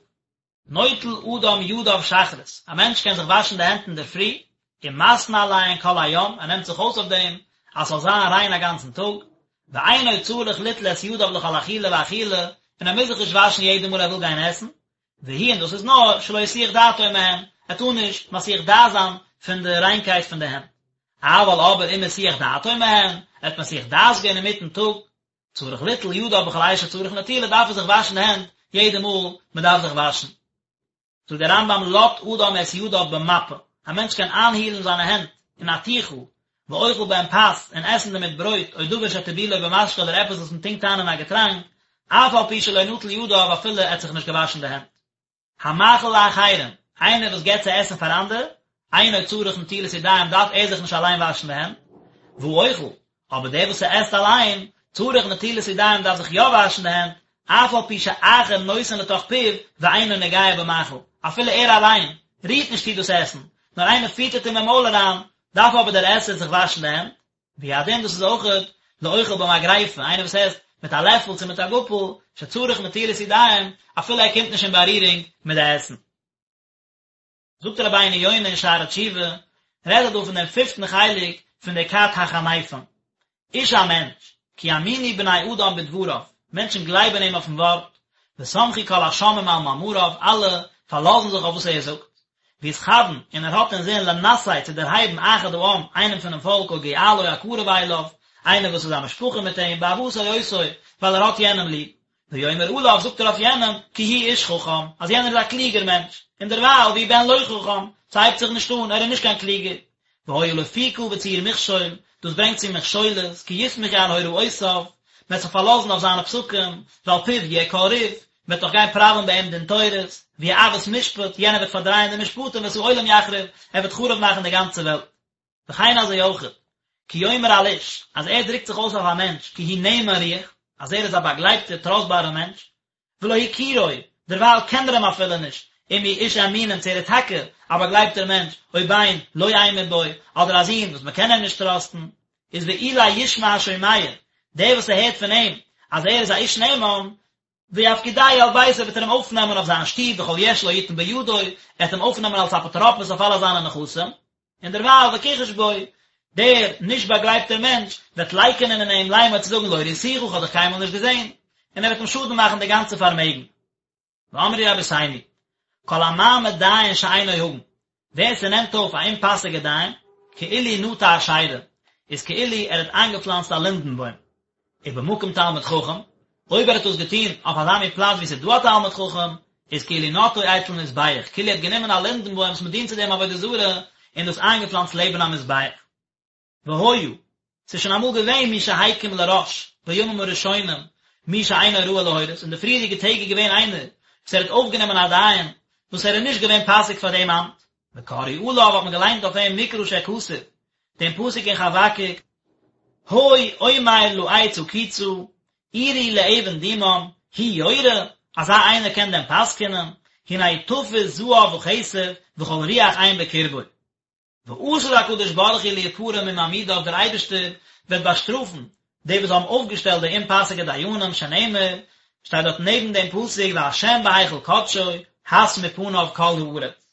נוטל אדם ידיו שחרית, א מענטש קען זיך וואשן די הענט אינדערפרי, ומתנה עליהן כל היום, ער נעמט זיך אויס אויף דעם אז ס'זאל זיין ריין א גאנצן טאג, ואינו צריך ליטול את ידיו לכל אכילה ואכילה, און ער מוז זיך נישט וואשן יעדע מאל ער וויל גיין עסן, והוא און דאס איז נאר שלא יסיח דעתו מהן, ער טאר נישט מסיח דעת זיין פון די ריינקייט פון די הענט. אבל אבער אם הסיח דעתו מהן, ער האט מסיח דעת געווען אינמיטן טאג, צריך ליטול ידיו בכל עת שצריך נטילה דארף ער זיך וואשן די הענט יעדע מאל מען דארף זיך וואשן. זאגט דער רמב"ם לט אדם את ידיו במפה, א מענטש קען איינהילן זיינע הענט אין א טיכל, ואוכל בהם פת, און עסן דערמיט ברויט, או דבר שטיבולו במשקה אדער עפעס וואס מען טונקט איין אין א געטראנק, אף על פי שלא נטל ידיו אפילו ער האט זיך נישט געוואשן די הענט. המאכיל לאחרים, איינער וואס געבט צו עסן פאר אנדערע, אינו צריך נטילת ידיים דארף ער זיך נישט אליין וואשן די הענט, והאוכל, אבער דער וואס ס'עסט אליין, צריך נטילת ידיים דארף זיך יא וואשן די הענט, אף על פי שאחר נותן לתוך פיו ואינו נוגע במאכל, אפילו ער אליין רירט נישט צו דאס עסן, נאר איינער פיטערט אים אין מויל אריין, דארף אבער דער עסער זיך וואשן די הענט, והוא הדין דאס איז אויכעט לאוכל במגריפה, איינער וואס עסט מיט א לעפל צו מיט א גאפל, שצריך נטילת ידיים, אפילו ער קומט נישט אין בארירונג מיט די עסן. זאגט רבינו יונה אין שערי תשובה, רעדט ער דא פון דעם פיפטן חלק פון די כת החניפים, איש א מענטש, כי יאמינו בני אדם בדבריו, מענטשן גלייבן אים אויפן ווארט, וסמכו כל השומעים על מאמריו, אלע פארלאזן זיך אויף וואס ער זאגט, ויתכוון, און ער האט אינזין לנשא צו דערהייבן אחד העם, איינעם פונעם פאלק או גואלו הקרוב אליו, איינער וואס איז א משפחה מיט אים, באהבתו אותו, ווייל ער האט יענעם ליב. ויאמר עליו, זאגט ער אויף יענעם, כי הוא איש חכם, אז יענער איז א קלוגער מענטש, און דערווייל, והוא בן לא חכם, ס'הייבט זיך נישט אן, ער איז נישט קיין קלוגער. והיה לפוקה וצור מכשול, דאס ברענגט צו מכשולות, כי יסמכו על הוראותיו, מ'וועט זיך פארלאזן אויף זיינע פסקים, ועל פיו יהיה כל ריב, מ'וועט דאך גיין פראווען ביי אים דין תורות, ויעוות משפט, יענער וועט פארדרייען די משפטים ואת העולם יחריב, ער וועט חרוב מאכן די גאנצע וועלט. וכן אזוי אויכעט, כי יאמר על איש, אז ער דרוקט זיך אויס אויף א מענטש, כי הוא נאמן רוח, אז ער איז א באגלייבטער טראסטבארער מענטש, ולא הכירו, דערווייל קען ער אים אפילו נישט, אם הוא איש אמונים צו ער איז טאקע א באגלייבטער מענטש, או בן לא אמור בו, אדער א זון וואס מען קען אים נישט טראסטן, איז ואולי ישמע השומע, דער וואס ס'הערט פון אים אז ער איז א איש נאמן, ויפקידהו על ביתו וועט ער אים אויפנעמען אויף זיין שטוב וכל יש לו יתן בידו, ער וועט אים אויפנעמען אלס אפוטרופוס אויף אלע זיינע נכסים, און דערווייל וכחש בו, דער נישט באגלייבטער מענטש וועט לייקענען אין אים לאמר צו זאגן לא ראיתיך איך האב דיך קיינמאל נישט געזען, און ער וועט אים שאדן מאכן די גאנצע פארמעגן. ואמרו רבותינו, כל המעמיד דיין שאינו הגון, ווער ס'נעמט אויף א אומפאסיגע דיין, כאילו נטע אשירה, איז כאילו ער האט איינגעפלאנצט א לינדן בוים. ובמקום תלמיד חכם, אויב ער האט דאס געטון אויף אזא מין פלאץ וואו ס'איז דא א תלמיד חכם, איז כאילו נטעו אצל מזבח, כאילו ער האט גענומען א לינדן בוים וואס מ'דינט צו דעם עבודה זרה, און דאס איינגעפלאנצט לעבן א מזבח. והיה, ס'איז שוין אמאל געווען מי שהקים לראש, בימים הראשונים, מי שאינו ראוי להורות, אין די פריערדיגע טעג איז געווען איינער וואס ער האט אויפגענומען א דיין וואס ער איז נישט געווען פאסיג פאר דעם אמט, וקראו עליו האט מען געליינט אויף אים מקרא שכתוב, דעם פסוק אין חבקוק, הוי אומר לעץ הקיצה, עורי לאבן דומם, הוא יורה, אזא איינער קען דען פסק'ענען, הנה תפוש זהב וכסף וכל רוח אין בקרבו. ועתיד הקדוש ברוך הוא להיפרע ממעמידיו דער אייבערשטער וועט באשטראפן. די וואס האבן אויפגעשטעלט די אומפאסיגע דיינים, שנאמר, שטייט דארט נעבן דעם פסוק והשם בהיכל קדשו, הס מפניו כל הארץ.